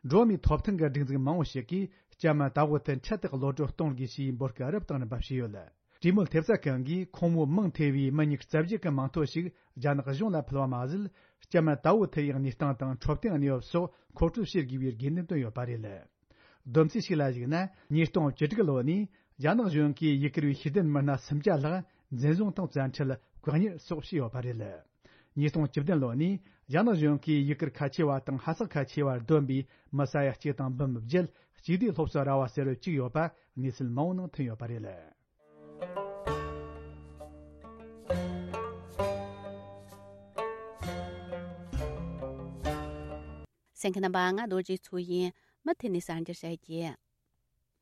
འགྲོ་བ་མིའི་ཐོབ་ཐང་གི་སྒྲིག་འཛུགས་མང་བོ་ཞིག་གིས་ལྕམ་ཏའོ་ཐི་འཕྲལ་དུ་གློད་གྲོལ་གཏོང་དགོས་ཞེས་འབོད་སྐུལ་རབ་དང་རིམ་པ་བྱས་ཡོད། གྲོས་མོལ་ཐེབས་རྩ་ཁང་གིས་ཁོང་མོ་མིང་ཐེ་བའི་མི་ཉིས་རྩ་བརྒྱད་ཀྱི་མིང་ཐོ་ཞིག་རྒྱ་ནག་གཞུང་ལ་ཕུལ་བ་མ་ཟད། ལྕམ་ཏའོ་ཐི་ཡི་གནས་སྟངས་དང་འཕྲོད་བསྟེན་གནས་བབ་སོགས་མཁོ་སྤྲོད་བྱེད་དགོས་པའི་དགོས་འདུན་བཏོན་ཡོད་པ་རེད། བསྡོམས་རྩིས་ཤིག་ལ་གཞིགས་ན། ཉིས་སྟོང་བཅུ་དྲུག་ལོ་ནས་རྒྱ་ནག་གཞུང་གིས་ཡུ་གུར་བའི་ཤེས་ལྡན་མི་སྣ་སུམ་བརྒྱ་ལྷག་འཛིན་བཟུང་དང་བཙན་ཁྲིད། བཀག་ཉར་སོགས་བྱས་ཡོད་པ་རེད། ཉིས་སྟོང་བཅུ་བདུན་ལོ་ནས་རྒྱ་ནག་གཞུང་གིས་ཡུ་གུར་ཁ་ཆེ་བ་དང་ཧ་སག་ཁ་ཆེ་བར་བསྡོམས་པའི་མི་ས་ཡ་གཅིག་དང་འབུམ་བརྒྱད། གཅིག་སྡུད་སློབ་གསོ་ར་བ་ཟེར་བ་བཅུག་ཡོད་པ་གནས་ཚུལ་མང་བོ་ནང་ཐོན་ཡོད་པ་རེད། གསན་མཁན་རྣམ་པ། ང་རྡོ་རྗེ་མཚོ་ཡིན། མུ་མཐུད་ནས་གསར་འགྱུར་བཤད་རྒྱུ།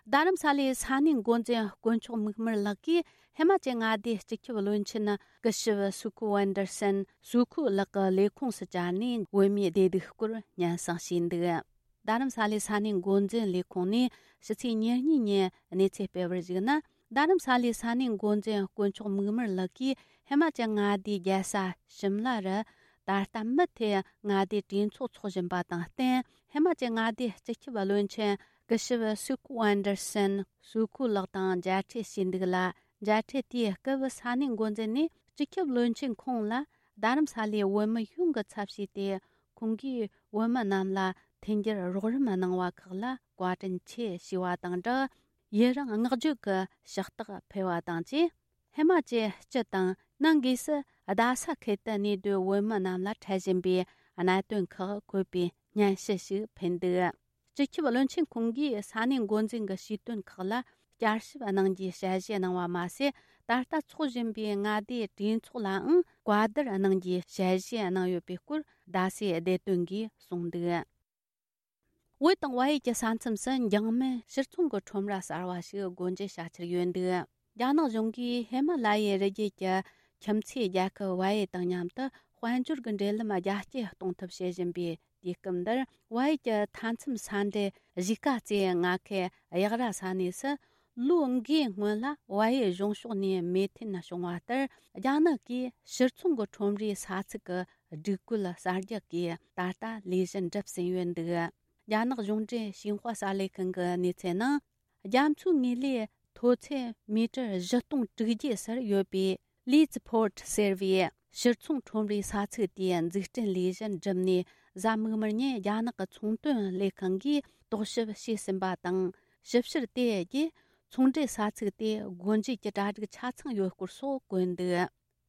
རྡ་རམ་ས་ལའི་ས་གནས་འགོ་འཛིན་དཀོན་མཆོག་མིག་དམར་ལགས་ཀྱིས་ཧི་མ་ཅལ་མངའ་སྡེའི་སྤྱི་ཁྱབ་བློན་ཆེན་སྐུ་ཞབས་སུ་ཁུ་ཝན་ཏར་སན་སུ་ཁུ་ལགས་ཀྱི་ལས་ཁུངས་སུ་བཅར་ནས་བོད་མིའི་བདེ་སྡུག་སྐོར་སྙན་སེང་ཞུས་འདུག་རྡ་རམ་ས་ལའི་ས་གནས་འགོ་འཛིན་ལས་ཁུངས་ནས་ཕྱི་ཚེས་ཉེར་གཉིས་ཉིན་གནས་ཚུལ་སྤེལ་བར་གཞིགས་ན། རྡ་རམ་ས་ལའི་ས་གནས་འགོ་འཛིན་དཀོན་མཆོག་མིག་དམར་ལགས་ཀྱིས་ཧི་མ་ཅལ་མངའ་སྡེའི་རྒྱལ་ས་ཞིམ་ལ་རུ་ད་ལྟ་མུ་མཐུད་མངའ་སྡེའི་གྲོས་ཚོགས་འཚོགས་བཞིན་པ་དང་བསྟུན། ཧི་མ་ཅལ་མངའ་སྡེའི་སྤྱི་ཁྱབ་བློན་ཆེན་སྐུ་ཞབས་སུ་ཁུ་ཝན་ཏར་སན་སུ་ཁུ་ལགས་དང་མཇལ་འཕྲད་བྱས་འདུག་ལ། མཇལ་འཕྲད་དེའི་སྐབས་ས་གནས་འགོ་འཛིན་ནས་སྤྱི་ཁྱབ་བློན་ཆེན་ཁོང་ལ་ རྡ་རམ་ས་ལའི་བོད་མི་ཡོངས་ཀྱི་ཚབ་བྱས་ཏེ། ཁོང་གིས་བོད་མི་རྣམས་ལ་མཐུན་འགྱུར་རོགས་རམ་གནང་བ་ཁག་ལ་བཀའ་དྲིན་ཆེ་ཞུས་པ་དང་སྦྲགས། ཡུན་རིང་བསྔགས་བརྗོད་ཀྱི་ཕྱག་རྟགས་ཕུལ་བ་དང་བཅས། ཧི་མ་ཅལ་སྤྱི་དང་ནང་སྒོས་སུ་རྡ་ས་ཁུལ་དུ་གནས་སྡོད་བོད་མི་རྣམས་ལ་འཕྲད་བཞིན་པའི་གནད་དོན་ཁག་འཁོད་པའི་སྙན་ཞུ་ཞིག་ཕུལ་འདུག་སྤྱི་ཁྱབ་བློན་ཆེན་ཁོང་གིས་ས་གནས་འགོ་འཛིན་གྱི་ཞུས་དོན་ཁག་ལ་བསྐྱར་ཞིབ་གནང་རྒྱུའི་ཞལ་བཞེས་གནང་བ་མ་ཟད། ད་ལྟ་འཚོགས་བཞིན་པའི་མངའ་སྡེའི་གྲོས་ཚོགས་ལའང་བཀའ་བསྡུར་གནང་རྒྱུའི་ཞལ་བཞེས་གནང་ཡོད་པའི་སྐོར། རྡ་སའི་བདེ་དོན་གྱིས་གསུངས་འདུག་བོད་དང་བལ་ཡུལ་གྱི་ས་མཚམས་སུ་འཇིང་སྨན་ཕྱིར་ཚོང་གི་ཁྲོམ་ར་གསར་བ་ཞིག་སྒོ་འབྱེད་བྱ་འཆར་ཡོད་འདུག་རྒྱ་ནག་གཞུང་གིས་ཧི་མ་ལ་ཡའི་རི་རྒྱུད་ཀྱི་ཁྱིམ་མཚེས་རྒྱལ་ཁབ་བལ་ཡུལ་དང་མཉམ་དུ་དཔལ་འབྱོར་གྱི་འབྲེལ་ལམ་རྒྱ་སྐྱེད་གཏོང་ཐབས་བྱེད་བཞིན་པའི་དུས་སྐབས་འདིར། བལ་ཡུལ་གྱི་མཐའ་མཚམས་ས་འབྲེལ་གཞིས་ཀ་རྩེའི་མངའ་ཁུལ་གཡག་ར་ས་གནས་སུ། ལོ་འགའི་སྔོན་ལ་བལ་ཡུལ་གཞུང་ཕྱོགས་ནས་མོས་མཐུན་བྱུང་བ་ལྟར། རྒྱ་ནག་གིས་ཕྱིར་ཚོང་གི་ཁྲོམ་རའི་ས་ཚིགས་ཀྱི་སྒྲིག་བཀོད་གསར་རྒྱག་གིས་ད་ལྟ་ལས་གཞི་འགྲུབ་ཟིན་ཡོད་འདུག་རྒྱ་ནག་གཞུང་འབྲེལ་ཤིན་ཧྭ་གསར་ལས་ཁང་གི་གནས་ཚུལ་ནང་། རྒྱ་མཚོའི་ངོས་ལས་མཐོ་ཚད་མི་ཊར་བཞི་སྟོང་དྲུག་བརྒྱ་སར་ཡོད་པའི་ལི་ཙི་ཕོར་ཊི་ཟེར་བའི་ཕྱིར་ཚོང་ཁྲོམ་རའི་ས་ཚིགས་དེའི་འཛུགས་སྐྲུན་ལས་གཞི་འགྲུབ་ནས། གཟའ་མིག་དམར་ཉིན་རྒྱ་ནག་གི་ཚོང་དོན་ལས་ཁང་གིས་རྟོག་ཞིབ་བྱས་ཟིན་པ་དང་། ཞིབ་བཤེར་དེ་རྗེས་ཚོང་འབྲེལ་ས་ཚིགས་དེ་སྒོ་འབྱེད་ཀྱི་གྲ་སྒྲིག་ཆ་ཚང་ཡོད་སྐོར་སོགས་བཀོད་འདུག་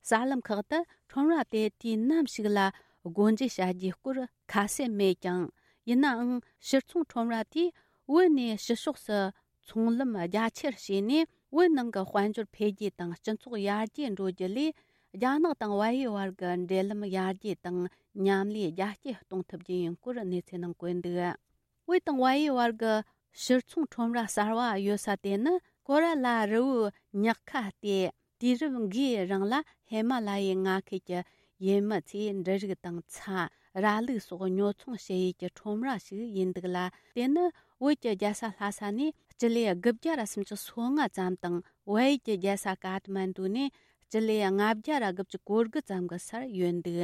གསར་ལམ་ཁག་ཏུ་ཁྲོམ་ར་དེ་དུས་ནམ་ཞིག་ལ་སྒོ་འབྱེད་བྱ་རྒྱུའི་སྐོར་ཁ་གསལ་མེད་ཀྱང་། ཡིན་ནའང་ཕྱིར་ཚོང་ཁྲོམ་ར་དེས་བོད་ནས་ཕྱི་ཕྱོགས་སུ་ཚོང་ལམ་རྒྱ་ཆེར་བྱས་ནས། བོད་ནང་གི་དཔལ་འབྱོར་འཕེལ་རྒྱས་དང་སྤྱི་ཚོགས་ཡར་རྒྱས་འགྲོ་རྒྱུ་ལས། རྒྱ་ནག་དང་བལ་ཡུལ་བར་གྱི་འབྲེལ་ལམ་ཡར་རྒྱས་དང་མཉམ་ལས་རྒྱ་སྐྱེད་གཏོང་ཐུབ་རྒྱུ་ཡིན་སྐོར་གནས་ཚུལ་ནང་བཀོད་འདུག་བོད་དང་བལ་ཡུལ་བར་གྱི་ཕྱིར་ཚོང་ཁྲོམ་ར་གསར་བ་ཡོད་ས་དེ་ནི་ཀོ་ར་ལ་རི་བོའི་ཉག་ཁ་སྟེ། དུས་རབས་འགའི་རིང་ལ་ཧི་མ་ལ་ཡའི་མངའ་ཁུལ་གྱི་ཡུལ་མི་ཚོས་འབྲུ་རིགས་དང་ཚྭ། ར་ལུག་སོགས་ཉོ་ཚོང་བྱེད་ཡུལ་གྱི་ཁྲོམ་ར་ཞིག་ཡིན་འདུག་ལ། དེ་ནི་བོད་ཀྱི་རྒྱལ་ས་ལྷ་ས་ནས་སྤྱི་ལེ་དགུ་བརྒྱ་ར་སུམ་ཅུ་སོ་ལྔ་ཙམ་དང་། བལ་ཡུལ་གྱི་རྒྱལ་ས་ཀ་ཐ་མན་ཌུ་ནས་སྤྱི་ལེ་ལྔ་བརྒྱ་ར་དགུ་བཅུ་གོ་དགུ་ཙམ་གྱི་སར་ཡོད་འདུག་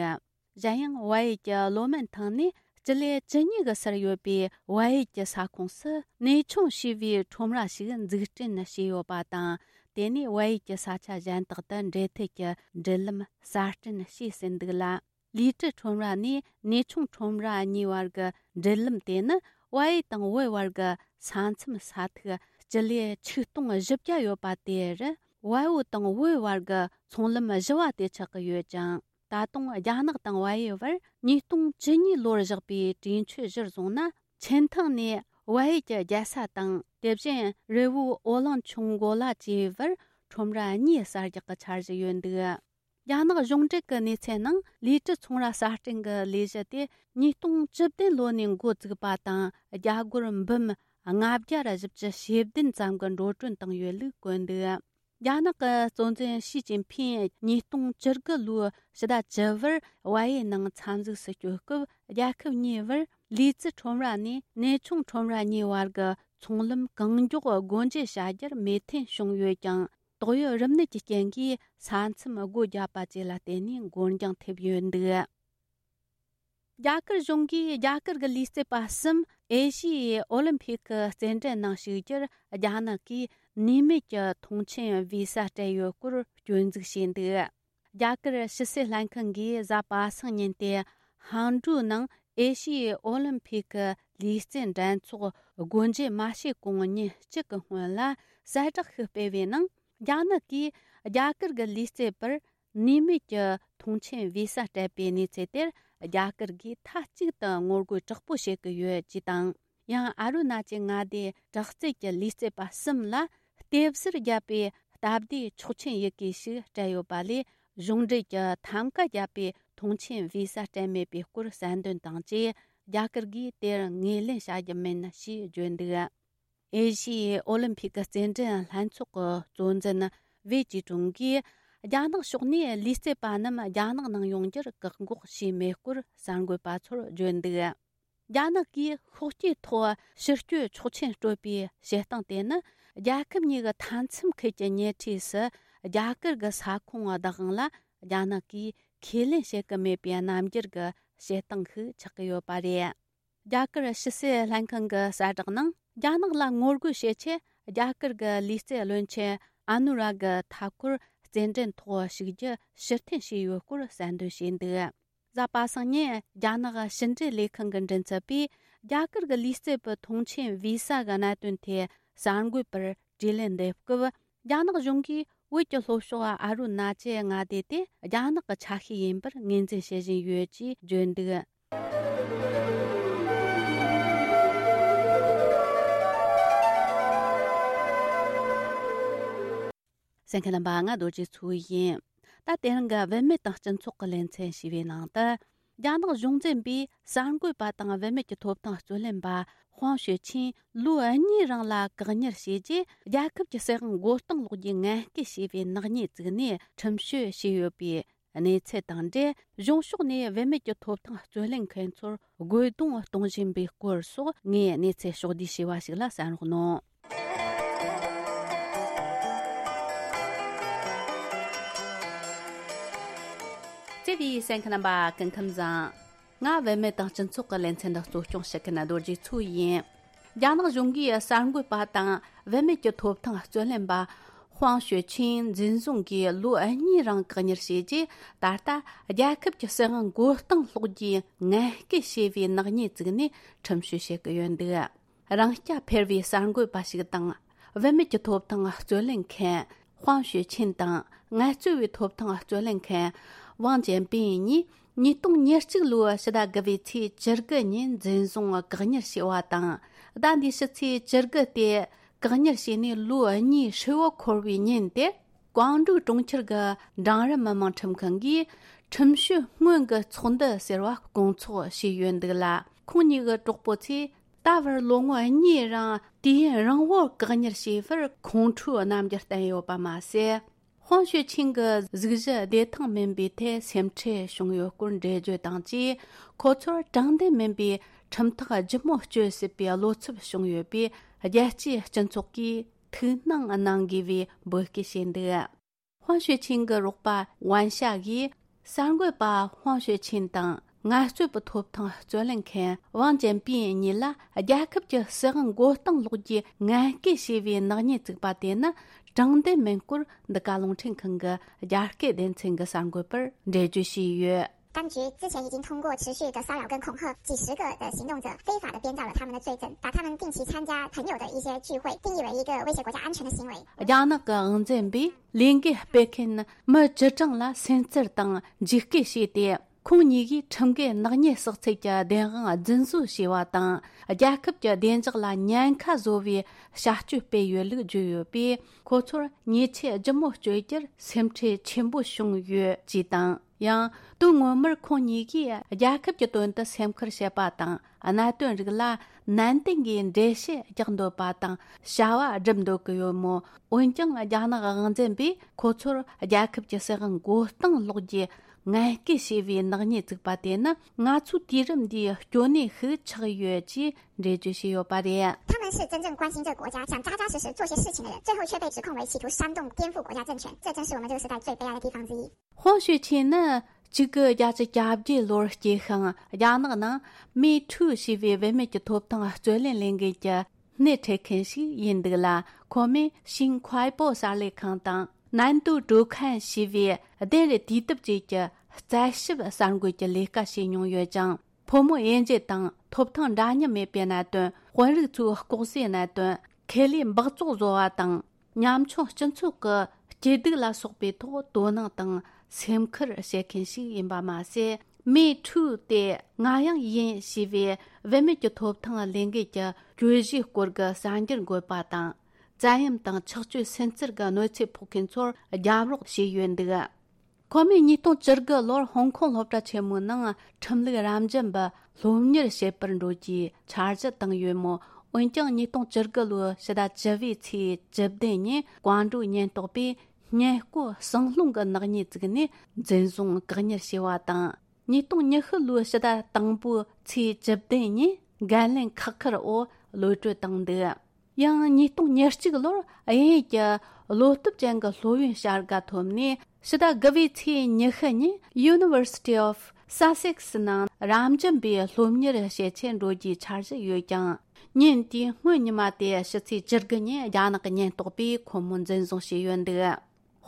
གཞན་ཡང་། བལ་ཡུལ་གྱི་ལོ་མན་ཐང་ནས་སྤྱི་ལེ་བཅུ་གཉིས་ཀྱི་སར་ཡོད་པའི་བལ་ཡུལ་གྱི་ས་ཁོངས་སུ་གནས་ཆུང་ཞེས་པའི་ཁྲོམ་ར་ཞིག་འཛུགས་སྐྲུན་བྱས་ཡོད་པ་དང་། དེ་ནས་བལ་ཡུལ་གྱི་ས་ཆ་གཞན་དག་ཏུ་འབྲེལ་མཐུད་ཀྱི་འབྲེལ་ལམ་གསར་སྐྲུན་བྱས་ཟིན་འདུག་ལ། ལི་ཀྲི་ཁྲོམ་ར་ནས་གནས་ཆུང་ཁྲོམ་ར་གཉིས་བར་གྱི་འབྲེལ་ལམ་དེ་ནི། བལ་ཡུལ་དང་བོད་བར་གྱི་ས་མཚམས་ས་ཐིག་སྤྱི་ལེ་ཆིག་སྟོང་བཞི་བརྒྱ་ཡོད་པ་དེར། བལ་པོ་དང་བོད་བར་གྱི་ཚོང་ལམ་བཞི་བ་དེ་ཆགས་ཀྱི་ཡོད་ཅིང་། ད་དུང་རྒྱ་ནག་དང་བལ་ཡུལ་བར་ཉིས་སྟོང་བཅུ་གཉིས་ལོར་བཞག་པའི་གྲོས་ཆོད་གཞིར་བཟུང་ན། ཆིན་ཐང་ནས་བལ་ཡུལ་གྱི་རྒྱལ་ས་དང་། དེ་བཞིན་རི་བོའི་འོ་གླིང་ཆུ་འགོ་ལ་བཅས་པར་ཁྲོམ་ར་གཉིས་གསར་རྒྱག་གི་འཆར་གཞི་ཡོད་འདུག་རྒྱ་ནག་གཞུང་འབྲེལ་གྱི་གནས་ཚུལ་ནང་། ལི་ཀྲི་ཚོང་ར་གསར་སྐྲུན་གྱི་ལས་གཞི་དེ་ཉིས་སྟོང་བཅུ་བདུན་ལོ་ནས་འགོ་བཙུགས་པ་དང་། རྒྱ་སྒོར་འབུམ་ལྔ་བརྒྱ་ར་བཞི་བཅུ་ཞེ་བདུན་ཙམ་གྱི་འགྲོ་གྲོན་བཏང་ཡོད་ལུགས་བཀོད་འདུག་རྒྱ་ནག་གི་གཙོ་འཛིན་ཞི་ཅིན་ཕིང་ཉིས་སྟོང་བཅུ་དགུ་ལོའི་ཕྱི་ཟླ་བཅུ་པར་བལ་ཡུལ་ནང་འཚམས་གཟིགས་སུ་བསྐྱོད་སྐབས། རྒྱལ་ཁབ་གཉིས་བར་ལི་ཙི་ཁྲོམ་ར་ནས་གནས་ཆུང་ཁྲོམ་ར་གཉིས་བར་གྱི་ཚོང་ལམ་གང་མགྱོགས་སྒོ་འབྱེད་བྱ་རྒྱུར་མོས་མཐུན་བྱུང་ཡོད་ཀྱང་། ཏོག་དབྱིབས་རིམས་ནད་ཀྱི་རྐྱེན་གྱིས་ས་མཚམས་སྒོ་བརྒྱབ་པ་བཅས་ལ་བརྟེན་ནས་འགོར་འགྱངས་ཐེབས་ཡོད་འདུག་རྒྱ་གར་གཞུང་གིས་རྒྱ་གར་གྱི་ལུས་རྩལ་པ་གསུམ་ཨེ་ཤི་ཡའི་ཨོ་ལིམ་ཕིག་གི་རྩེད་འགྲན་ནང་ཞུགས་རྒྱུར། རྒྱ་ནག་གིས་ནུས་མེད་ཀྱི་ཐོངས་མཆན་བི་ས་སྤྲད་ཡོད་སྐོར་སྐྱོན་འཛུགས་བྱས་འདུག་རྒྱ་གར་ཕྱི་སྲིད་ལྷན་ཁང་གིས་གཟའ་པ་སངས་ཉིན་ཏེ་ཧང་ཀྲུའུ་ནང་ཨེ་ཤི་ཡའི་ཨོ་ལིམ་ཕིག་གི་ལུས་རྩལ་འགྲན་ཚོགས་སྒོ་འབྱེད་མ་བྱས་གོང་ཉིན་གཅིག་གི་སྔོན་ལ་གསལ་བསྒྲགས་ཤིག་སྤེལ་བའི་ནང་། རྒྱ་ནག་གིས་རྒྱ་གར་གྱི་ལུས་རྩལ་པར་ནུས་མེད་ཀྱི་ཐོངས་མཆན་བི་ས་སྤྲད་པའི་གནས་ཚུལ་དེར། རྒྱ་གར་གྱིས་མཐའ་གཅིག་ཏུ་ངོ་རྒོལ་དྲག་པོ་བྱེད་ཀྱི་ཡོད་ཅེས་དང་། ཡང་ཨ་རུ་ན་ཅལ་མངའ་སྡེའི་དྲག་རྩལ་གྱི་ལུས་རྩལ་པ་གསུམ་ལ་ལྟེབ་གཟེར་བརྒྱབ་པའི་སྟབས་བདེའི་ཆོག་མཆན་ཡི་གེ་ཞིག་སྤྲད་ཡོད་པ་ལས། གཞུང་འབྲེལ་གྱི་ཐམ་ཀ་བརྒྱབ་པའི་ཐོངས་མཆན་བི་ས་སྤྲད་མེད་པའི་སྐོར་གསལ་འདོན་དང་བཅས། རྒྱ་གར་གྱིས་དེར་ངོས་ལེན་བྱ་རྒྱུ་མིན་ཞེས་བརྗོད་འདུག་ཨེ་ཤི་ཡའི་ཨོ་ལིམ་ཕིག་གི་རྩེད་འགྲན་ལྷན་ཚོགས་ཀྱི་གཙོ་འཛིན་ཝེ་ཅི་ཀྲུང་གིས། རྒྱ་ནག་ཕྱོགས་ནས་ལུས་རྩལ་པ་རྣམས་རྒྱ་ནག་ནང་ཡོང་རྒྱུར་བཀག་འགོག་བྱས་མེད་སྐོར་གསར་འགོད་པ་ཚོར་བརྗོད་འདུག་རྒྱ་ནག་གིས་ཤོག་སྐྱེས་ཐོག་ཕྱིར་སྐྱོད་ཆོག་མཆན་སྤྲོད་པའི་བྱེད་སྟངས་དེ་ནི། རྒྱལ་ཁབ་གཉིས་ཀྱི་མཐའ་མཚམས་ཁུལ་གྱི་ཉེ་འཁྲིས་སུ་རྒྱ་གར་གྱི་ས་ཁོངས་བདག་དབང་ལ་རྒྱ་ནག་གིས་ཁས་ལེན་བྱེད་ཀྱི་མེད་པའི་རྣམ་འགྱུར་གྱི་བྱེད་སྟངས་ཤིག་ཆགས་ཀྱི་ཡོད་པ་རེད། རྒྱ་གར་ཕྱི་སྲིད་ལྷན་ཁང་གི་གསལ་བསྒྲགས་ནང་། རྒྱ་ནག་ལ་ངོ་རྒོལ་བྱེད་ཆེད། རྒྱ་གར་གྱི་ལུས་རྩལ་བློན་ཆེན་ཨ་ནུ་ར་གི་མཐའ་འཁོར་ རྩེད་འགྲན་ཐོག་ཞུགས་རྒྱུ་ཕྱིར་འཐེན་བྱས་ཡོད་སྐོར་གསལ་འདོན་བྱས་འདུག། གཟའ་པ་སངས་ཉིན་རྒྱ་ནག་ཕྱི་འབྲེལ་ལས་ཁང་གི་མགྲིན་ཚབ་པས། རྒྱ་གར་གྱི་ལུས་རྩལ་པའི་ཐོངས་མཆན་བི་ས་གི་གནད་དོན་ཐད་གསར་འགོད་པར་དྲིས་ལན་འདེབས་སྐབས། རྒྱ་ནག་གཞུང་གིས་བོད་ཀྱི་ལྷོ་ཕྱོགས་ཨ་རུ་ན་ཅལ་མངའ་སྡེ་དེ་རྒྱ་ནག་གི་ཆ་ཤས་ཡིན་པར་ངོས་འཛིན་བྱེད་བཞིན་ཡོད་ཅེས་བརྗོད་འདུག། གསན་མཁན་རྣམ་པ། ང་རྡོ་རྗེ་མཚོ་ཡིན། ད་དེ་རིང་གི་བུད་མེད་དང་སྤྱི་ཚོགས་ཀྱི་ལེ་ཚན་ཞེས་པའི་ནང་དུ། རྒྱ་ནག་གཞུང་འཛིན་པས་གསར་འགོད་པ་དང་བུད་མེད་ཀྱི་ཐོབ་ཐང་རྩོད་ལེན་པ་ཧུང་ཞུས་ཆིན་ལོ་གཉིས་རིང་ལ་བཀག་ཉར་བྱས་རྗེས། རྒྱལ་ཁབ་ཀྱི་སྲིད་དབང་མགོ་རྟིང་སློག་རྒྱུའི་ངན་སྐུལ་བྱས་པའི་ནག་ཉེས་བཙུགས་ནས་ཁྲིམས་གཅོད་བྱས་ཡོད་པའི་གནས་ཚུལ་དང་འབྲེལ། གཞུང་ཕྱོགས་ནས་བུད་མེད་ཀྱི་ཐོབ་ཐང་རྩོད་ལེན་མཁན་ཚོར་རྒོལ་རྡུང་གཏོང་བཞིན་པའི་སྐོར་སོགས། ངས་གནས་ཚུལ་ཕྱོགས་བསྡུས་བྱས་པ་ཞིག་ལ་གསན་རོགས་གནང་། བརྩེ་བའི་གསན་མཁན་རྣམ་པ། སྐུ་ཁམས་བཟང་། ང་བུད་མེད་དང་སྤྱི་ཚོགས་ཀྱི་ལེ་ཚན་འདི་གཙོ་སྐྱོང་བྱེད་མཁན་རྡོ་རྗེ་མཚོ་ཡིན། རྒྱ་ནག་གཞུང་གིས་གསར་འགོད་པ་དང་བུད་མེད་ཀྱི་ཐོབ་ཐང་རྩོད་ལེན་པ་ཧུང་ཞུ་ཆིན་འཛིན་བཟུང་གིས་ལོ་གཉིས་རིང་བཀག་ཉར་བྱས་རྗེས། ད་ལྟ་རྒྱལ་ཁབ་ཀྱི་སྲིད་དབང་མགོ་རྟིང་སློག་རྒྱུའི་ངན་སྐུལ་བྱས་པའི་ནག་ཉེས་བཙུགས་ནས་ཁྲིམས་གཅོད་བྱེད་ཀྱི་ཡོད་འདུག། རང་སྐྱ་འཕེར་བའི་གསར་འགོད་པ་ཞིག་དང་། བུད་མེད་ཀྱི་ཐོབ་ཐང་རྩོད་ལེན་མཁན་ཧུང་ཞུ་ཆིན་དང་། ངལ་རྩོལ་བའི་ཐོབ་ཐང་རྩོད་ལེན་མཁན་ཝང་ཅན་པིན་གཉིས་ཉིས་སྟོང་ཉེར་གཅིག་ལོའི་ཕྱི་ཟླ་དགུ་པའི་ཚེས་བཅུ་དགུ་ཉིན་འཛིན་བཟུང་བཀག་ཉར་བྱས་པ་དང་། ཟླ་འདིའི་ཕྱི་ཚེས་བཅུ་དགུ་སྟེ། བཀག་ཉར་བྱས་ནས་ལོ་གཉིས་ཧྲིལ་བོ་འཁོར་བའི་ཉིན་དེར། ཀོང་ཀྲུའུ་གྲོང་ཁྱེར་གྱི་འབྲིང་རིམ་མི་དམངས་ཁྲིམས་ཁང་གིས་ཁྲིམས་གཅོད་སྔོན་གྱི་ཚོགས་འདུ་ཟེར་བ་སྐོང་ཚོགས་བྱས་ཡོད་འདུག་ལ། ཁོང་གཉིས་ཀྱི་གྲོགས་པོ་ཚོས་ད་བར་ལོ་ངོ་གཉིས་རིང་དུས་ཡུན་རིང་བོར་བཀག་ཉར་བྱས་པར་ཁོང་ཁྲོའི་རྣམ་འགྱུར་བསྟན་ཡོད་པ་མ་ཟད། ཧོང་ཞུས་ཆིན་གྱི་གཟུགས་གཞི་བདེ་ཐང་མིན་པའི་ཐད་སེམས་ཁྲལ་བྱུང་ཡོད་སྐོར་འགྲེལ་བརྗོད་དང་བཅས། ཁོ་ཚོར་དྲང་བདེན་མིན་པའི་ཁྲིམས་ཐག་ལྗིད་མོ་གཅོད་སྲིད་པའི་བློ་འཚབ་བྱུང་ཡོད་པས། རྒྱལ་སྤྱིའི་སྤྱི་ཚོགས་ཀྱིས་ཐུགས་སྣང་གནང་དགོས་པའི་འབོད་སྐུལ་བྱས་འདུག། ཧོང་ཞུས་ཆིན་གྱི་རོགས་པ་ཝན་ཤ་གིས་གསར་འགོད་པ་ཧོང་ཞུས་ཆིན་དང་། ངལ་རྩོལ་པའི་ཐོབ་ཐང་རྩོད་ལེན་མཁན་ཝང་ཅན་པིན་གཉིས་ལ་རྒྱལ་ཁབ་ཀྱི་སྲིད་དབང་མགོ་རྟིང་སློག་རྒྱུའི་ངན་སྐུལ་བྱས་པའི་ནག་ཉེས་བཙུགས་པ་དེ་ནི་དྲང་བདེན་མིན་སྐོར། འདི་ག་རླུང་འཕྲིན་ཁང་གི་རྒྱ་སྐད་སྡེ་ཚན་གྱི་གསར་འགོད་པར་འགྲེལ་བརྗོད་བྱས་ཡོད། 当局之前已经通过持续的骚扰跟恐吓，几十个的行动者非法的编造了他们的罪证，把他们定期参加朋友的一些聚会定义为一个威胁国家安全的行为。 རྒྱ་ནག་གི་དབང་འཛིན་པས་ལས་འགུལ་སྤེལ་མཁན་མི་བཅུ་གྲངས་ལ་སེམས་ཚུལ་དང་འཇིགས་སྐུལ་བྱས་ཏེ། ཁོང་གཉིས་ཀྱིས་ཁྲིམས་འགལ་ནག་ཉེས་བསགས་ཚུལ་གྱི་བདེན་དཔང་རྫུན་བཟོ་བྱས་པ་དང་། རྒྱལ་ཁབ་ཀྱི་བདེ་འཇགས་ལ་ཉེན་ཁ་བཟོ་བའི་བྱ་སྤྱོད་སྤེལ་ཡོད་ལུགས་བརྗོད་ཡོད་པས། ཁོ་ཚོར་ཉེས་ཆད་ལྗིད་མོ་གཅོད་རྒྱུར་སེམས་ཁྲལ་ཆེན་པོ་བྱུང་ཡོད་ཅེས་དང་། ཡང་དོན་ངོ་མར་ཁོང་གཉིས་ཀྱིས་རྒྱལ་ཁབ་ཀྱི་དོན་དུ་སེམས་ཁུར་བྱེད་པ་དང་། གནད་དོན་རིགས་ལ་ནན་ཏན་གྱིས་འགྲེལ་བཤད་རྒྱག་འདོད་པ་དང་བྱ་བ་སྒྲུབ་འདོད་ཀྱི་ཡོད་མོད། འོན་ཀྱང་རྒྱ་ནག་དབང་འཛིན་པས་ཁོ་ཚོར་རྒྱལ་ཁབ་ཀྱི་སྲིད་དབང་མགོ་རྟིང་སློག་རྒྱུའི་ངན་སྐུལ་བྱས་པའི་ནག་ཉེས་བཙུགས་པ་དེ་ནི་ང་ཚོའི་དུས་རིམ་འདིའི་སྐྱོ་གནས་ཤིག་ཆགས་ཡོད་ཅེས་འགྲེལ་བརྗོད་བྱས་ཡོད་པ་རེད། 他们是真正关心这个国家，想扎扎实实做些事情的人，最后却被指控为企图煽动颠覆国家政权，这正是我们这个时代最悲哀的地方之一。 ཧོང་ཞུས་ཆིན་ནི་གཅིག་དགུ་བརྒྱད་ཅུ་གྱ་བརྒྱད་ལོར་སྐྱེས་ཤིང་། རྒྱ་ནག་ནང་མི་ཐུ་ཞེས་པའི་བུད་མེད་ཀྱི་ཐོབ་ཐང་རྩོད་ལེན་ལས་འགུལ་གྱི་སྣེ་ཁྲིད་མཁན་ཞིག་ཡིན་འདུག་ལ། ཁོ་མོས་ཤིང་ཁོའི་པོ་གསར་ལས་ཁང་དང་། ནན་ཏུའུ་ཀྲུའུ་ཁན་ཞེས་པའི་གདན་རེ་དུས་དེབ་ཅིག་གི་རྩད་ཞིབ་གསར་འགོད་ཀྱི་ལས་ཀ་བྱས་མྱོང་ཡོད་ཅིང་། ཕོ་མོ་དབྱེ་འབྱེད་དང་། ཐོབ་ཐང་འདྲ་མཉམ་མེད་པའི་གནད་དོན། དཔོན་རིགས་ཚོའི་ལྐོག་ཟའི་གནད་དོན། ཁེ་ལས་འབག་བཙོག་བཟོ་བ་དང་། ཉམ་ཆུང་སྤྱི་ཚོགས་ཀྱི་སྐྱིད་སྡུག་ལ་སོགས་པའི་ཐོག་དོ་སྣང་དང་སེམས་ཁུར་བྱེད་མཁན་ཞིག་ཡིན་པ་མ་ཟད། མི་ཁྲུའུ་སྟེ་ང་ཡང་ཡིན་ཞེས་པའི་བུད་མེད་ཀྱི་ཐོབ་ཐང་ལས་འགུལ་གྱི་གྱོད་གཞིའི་སྐོར་གྱི་གསར་འགྱུར་འགོད་པ་དང་། བཙན་གཡེམ་དང་ཆགས་སྤྱོད་སུན་གཙེར་གྱི་གནོད་འཚེ་ཕོག་མཁན་ཚོར་རྒྱབ་རོགས་བྱས་ཡོད་འདུག། ཁོ་མོས་ཉིས་སྟོང་བཅུ་དགུ་ལོར་ཧོང་ཀོང་སློབ་གྲྭ་ཆེན་མོའི་ནང་ཁྲིམས་ལུགས་རབ་འབྱམས་པ་སློབ་གཉེར་བྱེད་པར་འགྲོ་རྒྱུའི་འཆར་གཞི་བཏིང་ཡོད་མོད། འོན་ཀྱང་ཉིས་སྟོང་བཅུ་དགུ་ལོའི་ཕྱི་ཟླ་བཅུ་པའི་ཚེས་བཅུ་བདུན་ཉིན་ཀོང་ཀྲུའུ་ཉེན་རྟོག་པས་ཉེན་བསྐོ་ཟིང་སློང་གི་ནག་ཉེས་བཙུགས་ནས་འཛིན་བཟུང་བཀག་ཉར་བྱས་པ་དང་། ཉིས་སྟོང་ཉི་ཤུ་ལོའི་ཕྱི་ཟླ་དང་པོའི་ཚེས་བཅུ་བདུན་ཉིན་འགན་ལེན་ཁག་ཁུར་འོག་གློད་གྲོལ་བཏང་འདུག། ཡང་ཉིས་སྟོང་ཉེར་གཅིག་ལོར་དབྱིན་ཡུལ་གྱི་བློ་སྟོབས་ཅན་གྱི་སློབ་ཡོན་བྱ་དགའ་ཐོབ་ནས། ཕྱི་ཟླ་དགུ་པའི་ཚེས་ཉི་ཤུ་ཉིན་University of Sussex ནང་རབ་འབྱམས་པའི་སློབ་གཉེར་བྱེད་ཆེད་འགྲོ་རྒྱུའི་འཆར་གཞི་ཡོད་ཀྱང་། ཉིན་དེའི་སྔོན་ཉི་མ་སྟེ་ཕྱི་ཚེས་བཅུ་དགུ་ཉིན་རྒྱ་ནག་གི་ཉེན་རྟོག་པས་ཁོ་མོ་འཛིན་བཟུང་བྱས་ཡོད་འདུག།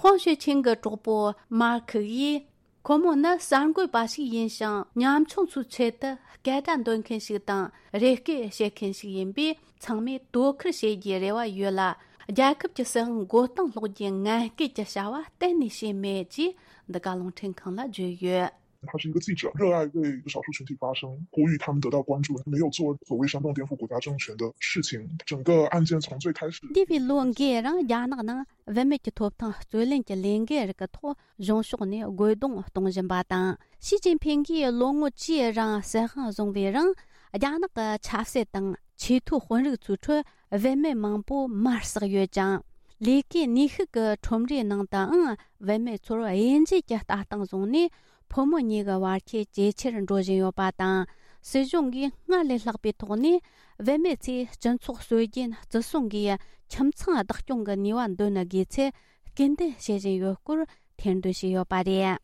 ཧོང་ཞུས་ཆིང་གི་གྲོགས་པོ་མར་ཁི་ཡིས། ཁོ་མོ་ནི་གསར་འགོད་པ་ཞིག་ཡིན་ཞིང་། ཉམ་ཆུང་ཚོའི་ཆེད་དུ་སྐད་སྒྲ་འདོན་མཁན་ཞིག་དང་། རེ་སྐུལ་བྱེད་མཁན་ཞིག་ཡིན་པས། ཚང་མས་དོ་ཁུར་བྱེད་རྒྱུའི་རེ་བ་ཡོད་ལ། རྒྱལ་ཁབ་ཀྱི་སྲིད་དབང་མགོ་རྟིང་སློག་རྒྱུའི་ངན་སྐུལ་གྱི་བྱ་བ་གཏན་ནས་བྱས་མེད་ཅེས་འདི་ག་རླུང་འཕྲིན་ཁང་ལ་བརྗོད་ཡོད། 他是一个记者，热爱为少数群体发声，呼吁他们得到关注，没有做所谓煽动颠覆国家政权的事情。整个案件从最开始 འདས་པའི་ལོ་འགའི་རིང་རྒྱ་ནག་ནང་བུད་མེད་ཀྱི་ཐོབ་ཐང་རྩོད་ལེན་གྱི་ལས་འགུལ་རིགས་ཀྱི་ཐོག་གཞུང་ཕྱོགས་ནས་རྒོལ་རྡུང་གཏོང་བཞིན་པ་དང་། ཞི་ཅིན་ཕིང་གིས་ལོ་ངོ་བཅུའི་རིང་སྲིད་དབང་བཟུང་བའི་རིང་། རྒྱ་ནག་གི་ཆབ་སྲིད་དང་ཆེས་མཐོའི་དཔོན་རིགས་ཚོའི་ཁྲོད་བུད་མེད་མང་པོ་མར་ཟག་ཡོད་ཅིང་། ལས་ཀའི་ནུས་ཤུགས་ཀྱི་ཁྲོམ་རའི་ནང་དུའང་བུད་མེད་ཚོར་དབྱེ་འབྱེད་ཀྱི་ལྟ་སྟངས་བཟུང་ནས། ཕོ་མོ་གཉིས་ཀྱི་བར་ཁྱད་ཇེ་ཆེར་འགྲོ་བཞིན་ཡོད་པ་དང་། སྲིད་གཞུང་གིས་སྔར་ལས་ལྷག་པའི་ཐོག་ནས་བུད་མེད་ཚོས་སྤྱི་ཚོགས་སྲོལ་རྒྱུན་བརྩི་སྲུང་གིས་ཁྱིམ་ཚང་བདག་སྐྱོང་གི་ནུས་པ་འདོན་དགོས་ཚུལ་སྐུལ་འདེད་བྱེད་བཞིན་ཡོད་སྐོར་ཐེར་འདོན་བྱས་ཡོད་པ་རེད།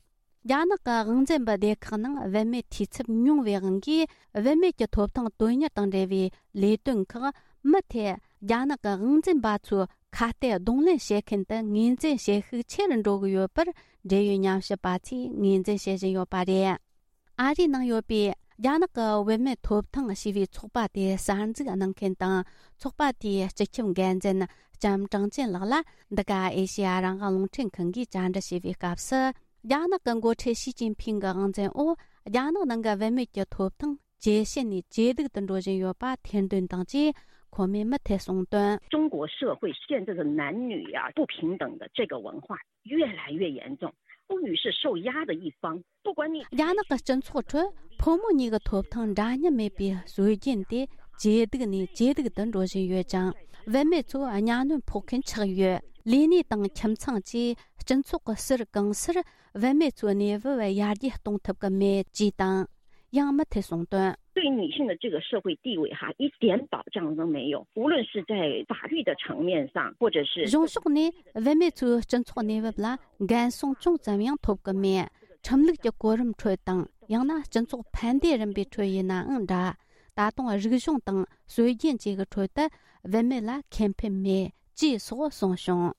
རྒྱ་ནག་གི་དབང་འཛིན་པའི་སྡེ་ཁག་ནང་བུད་མེད་འཐུས་ཚབ་ཉུང་བའི་དབང་གིས། བུད་མེད་ཀྱི་ཐོབ་ཐང་དོན་གཉེར་དང་འབྲེལ་བའི་ལས་དོན་ཁག་མུ་མཐུད་རྒྱ་ནག་གི་དབང་འཛིན་པ་ཚོས་ཁ་གཏད་གདོང་ལེན་བྱེད་མཁན་དུ་ངོས་འཛིན་བྱེད་ཤུགས་ཆེ་རུ་འགྲོ་གི་ཡོད་པར། འབྲེལ་ཡོད་ཉམས་ཞིབ་པ་ཚོས་ངོས་འཛིན་བྱེད་བཞིན་ཡོད་པ་རེད། ཨ་རིའི་ནང་ཡོད་པའི་རྒྱ་ནག་གི་བུད་མེད་ཐོབ་ཐང་ཞེས་པའི་ཚོགས་པ་དེ་གསར་འཛུགས་གནང་མཁན་དང་། ཚོགས་པ་དེའི་སྤྱི་ཁྱབ་འགན་འཛིན་ལྕམ་ཀྲང་ཅན་ལགས་ལ། འདི་ག་ཨེ་ཤེ་ཡ་རང་དབང་རླུང་འཕྲིན་ཁང་གིས་བཅར་འདྲི་བྱས་པའི་སྐབས་སུ། རྒྱ་ནག་གི་འགོ་ཁྲིད་ཞི་ཅིན་ཕིང་གི་དབང་འཛིན་འོག་རྒྱ་ནག་ནང་གི་བུད་མེད་ཀྱི་ཐོབ་ཐང་ཇེ་ཞན་ནས་ཇེ་སྡུག་ཏུ་འགྲོ་བཞིན་ཡོད་པ་ཐེར་འདོན་དང་བཅས། ཁོ་མོས་མུ་མཐུད་གསུངས་དོན། 中国社会现在的男女呀、不平等的这个文化越来越严重，妇女是受压的一方，不管你 རྒྱ་ནག་གི་སྤྱི་ཚོགས་ཁྲོད་ཕོ་མོ་གཉིས་ཀྱི་ཐོབ་ཐང་འདྲ་མཉམ་མེད་པའི་སྲོལ་རྒྱུན་དེ་ཇེ་སྡུག་ནས་ཇེ་སྡུག་ཏུ་འགྲོ་བཞིན་ཡོད་ཅིང་། བུད་མེད་ཚོ་གཉའ་གནོན་ཕོག་མཁན་ཆགས་ཡོད། ལས་གནས་དང་ཁྱིམ་ཚང་བཅས་སྤྱི་ཚོགས་ཀྱི་ཟུར་གང་སར་བུད་མེད་ཚོའི་གནས་བབ་ཡར་རྒྱས་གཏོང་ཐུབ་ཀྱི་མེད་ཅེས་དང་། ཡང་མུ་མཐུད་གསུངས་དོན། 对女性的这个社会地位哈，一点保障都没有。无论是在法律的层面上，或者是 གཞུང་ཕྱོགས་ནས་བུད་མེད་ཚོའི་སྤྱི་ཚོགས་གནས་བབ་ལ་འགན་སྲུང་ཅུང་ཙམ་ཡང་ཐོབ་ཀྱི་མེད། ཁྲིམས་ལུགས་ཀྱི་གོ་རིམ་ཁྲོད་དང་། ཡང་ན་སྤྱི་ཚོགས་ཕན་བདེ་རིམ་པའི་ཁྲོད་ཡིན་ནའང་འདྲ། ད་དུང་རིག་གཞུང་དང་སྲོལ་རྒྱུན་བཅས་ཀྱི་ཁྲོད་དུ་བུད་མེད་ལ་ཁེ་ཕན་མེད་ཅེས་སོགས་གསུངས་བྱུང་།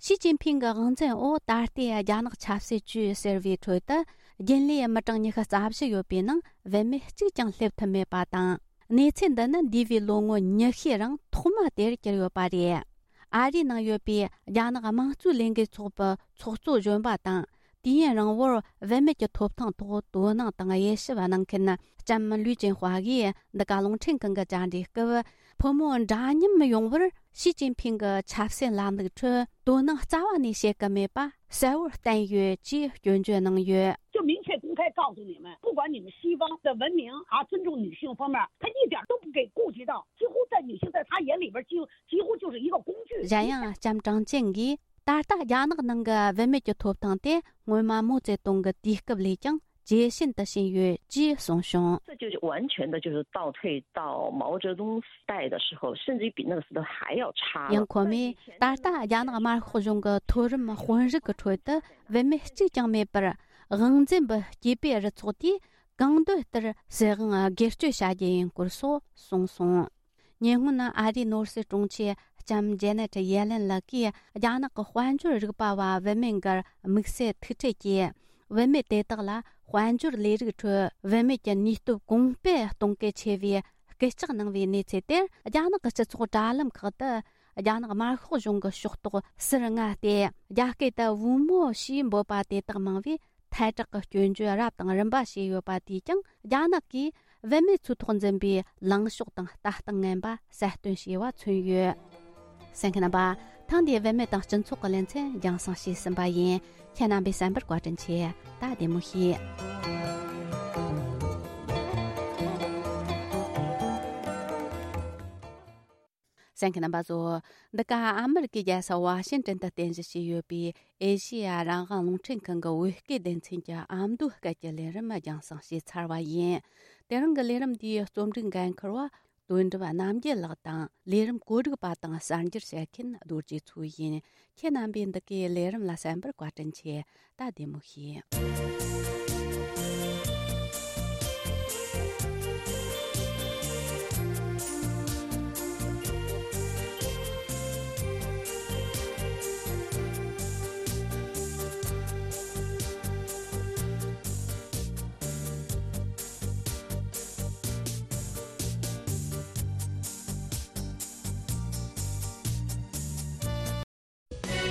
ཞི་ཅིན་ཕིང་གི་དབང་འཛིན་འོག་ད་ལྟའི་རྒྱ་ནག་ཆབ་སྲིད་ཅུས་ཟེར་བའི་ཁྲོད་དུ། རྒྱུན་ལས་མི་གྲངས་ཉི་ཤུ་རྩ་བཞི་ཡོད་པའི་ནང་བུད་མེད་གཅིག་ཀྱང་སླེབས་ཐུབ་མེད་པ་དང་། གནས་ཚུལ་འདི་ནི་འདས་པའི་ལོ་ངོ་ཉི་ཤུའི་རིང་ཐོག་མ་དེར་གྱུར་ཡོད་པ་རེད། ཨ་རིའི་ནང་ཡོད་པའི་རྒྱ་ནག་དམངས་གཙོའི་ལས་འགུལ་ཚོགས་པའི་ཚོགས་གཙོ་གཞོན་པ་དང་། དུས་ཡུན་རིང་བོར་བུད་མེད་ཀྱི་ཐོབ་ཐང་ཐོག་དོ་སྣང་དང་དབྱེ་ཞིབ་གནང་མཁན་ལྕམ་ལུའུ་ཅན་ཧྭ་ཡིས་འདི་ག་རླུང་འཕྲིན་ཁང་གི་བཅར་འདྲིའི་སྐབས། ཕོ་མོ་འདྲ་མཉམ་ཡོང་བར་ཞི་ཅིན་ཕིང་གི་ཆབ་སྲིད་ལམ་ལུགས་ཁྲོད་དོ་སྣང་རྩ་བ་ནས་བྱེད་ཀྱི་མེད་པ་གསལ་བོར་བསྟན་ཡོད་ཅེས་སྐྱོན་བརྗོད་གནང་ཡོད། 就明确公开告诉你们，不管你们西方的文明啊，尊重女性方面，他一点都不给顾及到，几乎在女性在他眼里边，几乎几乎就是一个工具。 གཞན་ཡང་ལྕམ་ཀྲང་ཅན་གྱིས། ད་ལྟ་རྒྱ་ནག་ནང་གི་བུད་མེད་ཀྱི་ཐོབ་ཐང་དེ་སྔོན་མ་མའོ་ཙེ་ཏུང་གི་དུས་སྐབས་ལས་ཀྱང་ཇེ་ཞན་དུ་ཕྱིན་ཡོད་ཅེས་གསུངས་བྱུང་། 这就是完全的，就是倒退到毛泽东时代的时候，甚至于比那个时候还要差了。 ཡང་ཁོ་མོས་ད་ལྟ་རྒྱ་ནག་དམར་ཤོག་གཞུང་གི་མཐོ་རིམ་དཔོན་རིགས་ཀྱི་ཁྲོད་དུ་བུད་མེད་གཅིག་ཀྱང་མེད་པར། དབང་འཛིན་པའི་སྐྱེས་པའི་རུ་ཚོགས་དེས་གང་འདོད་ལྟར་སྲིད་དབང་སྒེར་གཅོད་བྱ་རྒྱུ་ཡིན་སྐོར་སོགས་གསུངས་སོང་། ཉེ་སྔོན་ཨ་རིའི་ནོར་སྲིད་དྲུང་ཆེ་ལྕམ་ཇེ་ནེ་ཊི་ཡེ་ལེན་ལགས་ཀྱིས་རྒྱ་ནག་གི་དཔལ་འབྱོར་རིག་པ་བ་བུད་མེད་འགར་དམིགས་བསལ་ཐུག་འཕྲད་ཀྱིས། བུད་མེད་དེ་དག་ལ་དཔལ་འབྱོར་ལས་རིགས་ཁྲོད་བུད་མེད་ཀྱི་ནུས་སྟོབས་གོང་སྤེལ་གཏོང་གལ་ཆེ་བའི་སྐུལ་ལྕག་གནང་བའི་གནས་ཚུལ་དེར། རྒྱ་ནག་གི་སྤྱི་ཚོགས་དྲ་ལམ་ཁག་ཏུ་རྒྱ་ནག་དམར་ཤོག་གཞུང་གི་ཕྱོགས་གཏོགས་ཟུར་ལྔ་སྟེ། རྒྱ་སྐད་དུ་བུ་མོ་ཞེས་འབོད་པ་དེ་དག་མང་བས། ཐལ་དྲག་གི་སྐྱོན་བརྗོད་རབ་དང་རིམ་པ་བྱས་ཡོད་པ་དེས་ཀྱང་རྒྱ་ནག་གིས་བུད་མེད་ཚོའི་ཐོག་འཛིན་པའི་ལངས་ཕྱོགས་དང་ལྟ་སྟངས་ངན་པ་གསལ་སྟོན་བྱས་པ་མཚོན་ཡོད། གསན་མཁན་རྣམ་པ། ཐེངས་འདིའི་བུད་མེད་དང་སྤྱི་ཚོགས་ཀྱི་ལེ་ཚན་རྒྱང་སྲིང་བྱས་ཟིན་པ་ཡིན། ཁྱེད་རྣམ་པས་གསན་པར་བཀའ་དྲིན་ཆེ། ད་བདེ་མོ་བྱོས། གསན་མཁན་རྣམ་པ་ཚོ། འདི་ག་ཨ་མི་རི་ཀའི་རྒྱལ་ས་ཝ་ཤིང་ཏན་དུ་རྟེན་གཞི་བྱས་ཡོད་པའི་ཨེ་ཤེ་ཡ་རང་དབང་རླུང་འཕྲིན་ཁང་གི་བོད་སྐད་སྡེ་ཚན་གྱི་ཨ་མདོའི་སྐད་ཀྱི་ལས་རིམ་རྒྱང་སྲིང་བྱས་ཚར་བ་ཡིན། དེ་རིང་གི་ལས་རིམ་འདིའི་རྩོམ་སྒྲིག་འགན་འཁུར་བ་དོན་གྲུབ་རྣམ་རྒྱལ་ལགས་དང་། ལས་རིམ་བཀོད་སྒྲིག་པ་དང་གསར་འགྱུར་བཤད་མཁན་རྡོ་རྗེ་མཚོ་ཡིན། ཁྱེད་རྣམ་པས་འདི་གའི་ལས་རིམ་ལ་གསན་པར་བཀའ་དྲིན་ཆེ། ད་བདེ་མོ་བྱོས།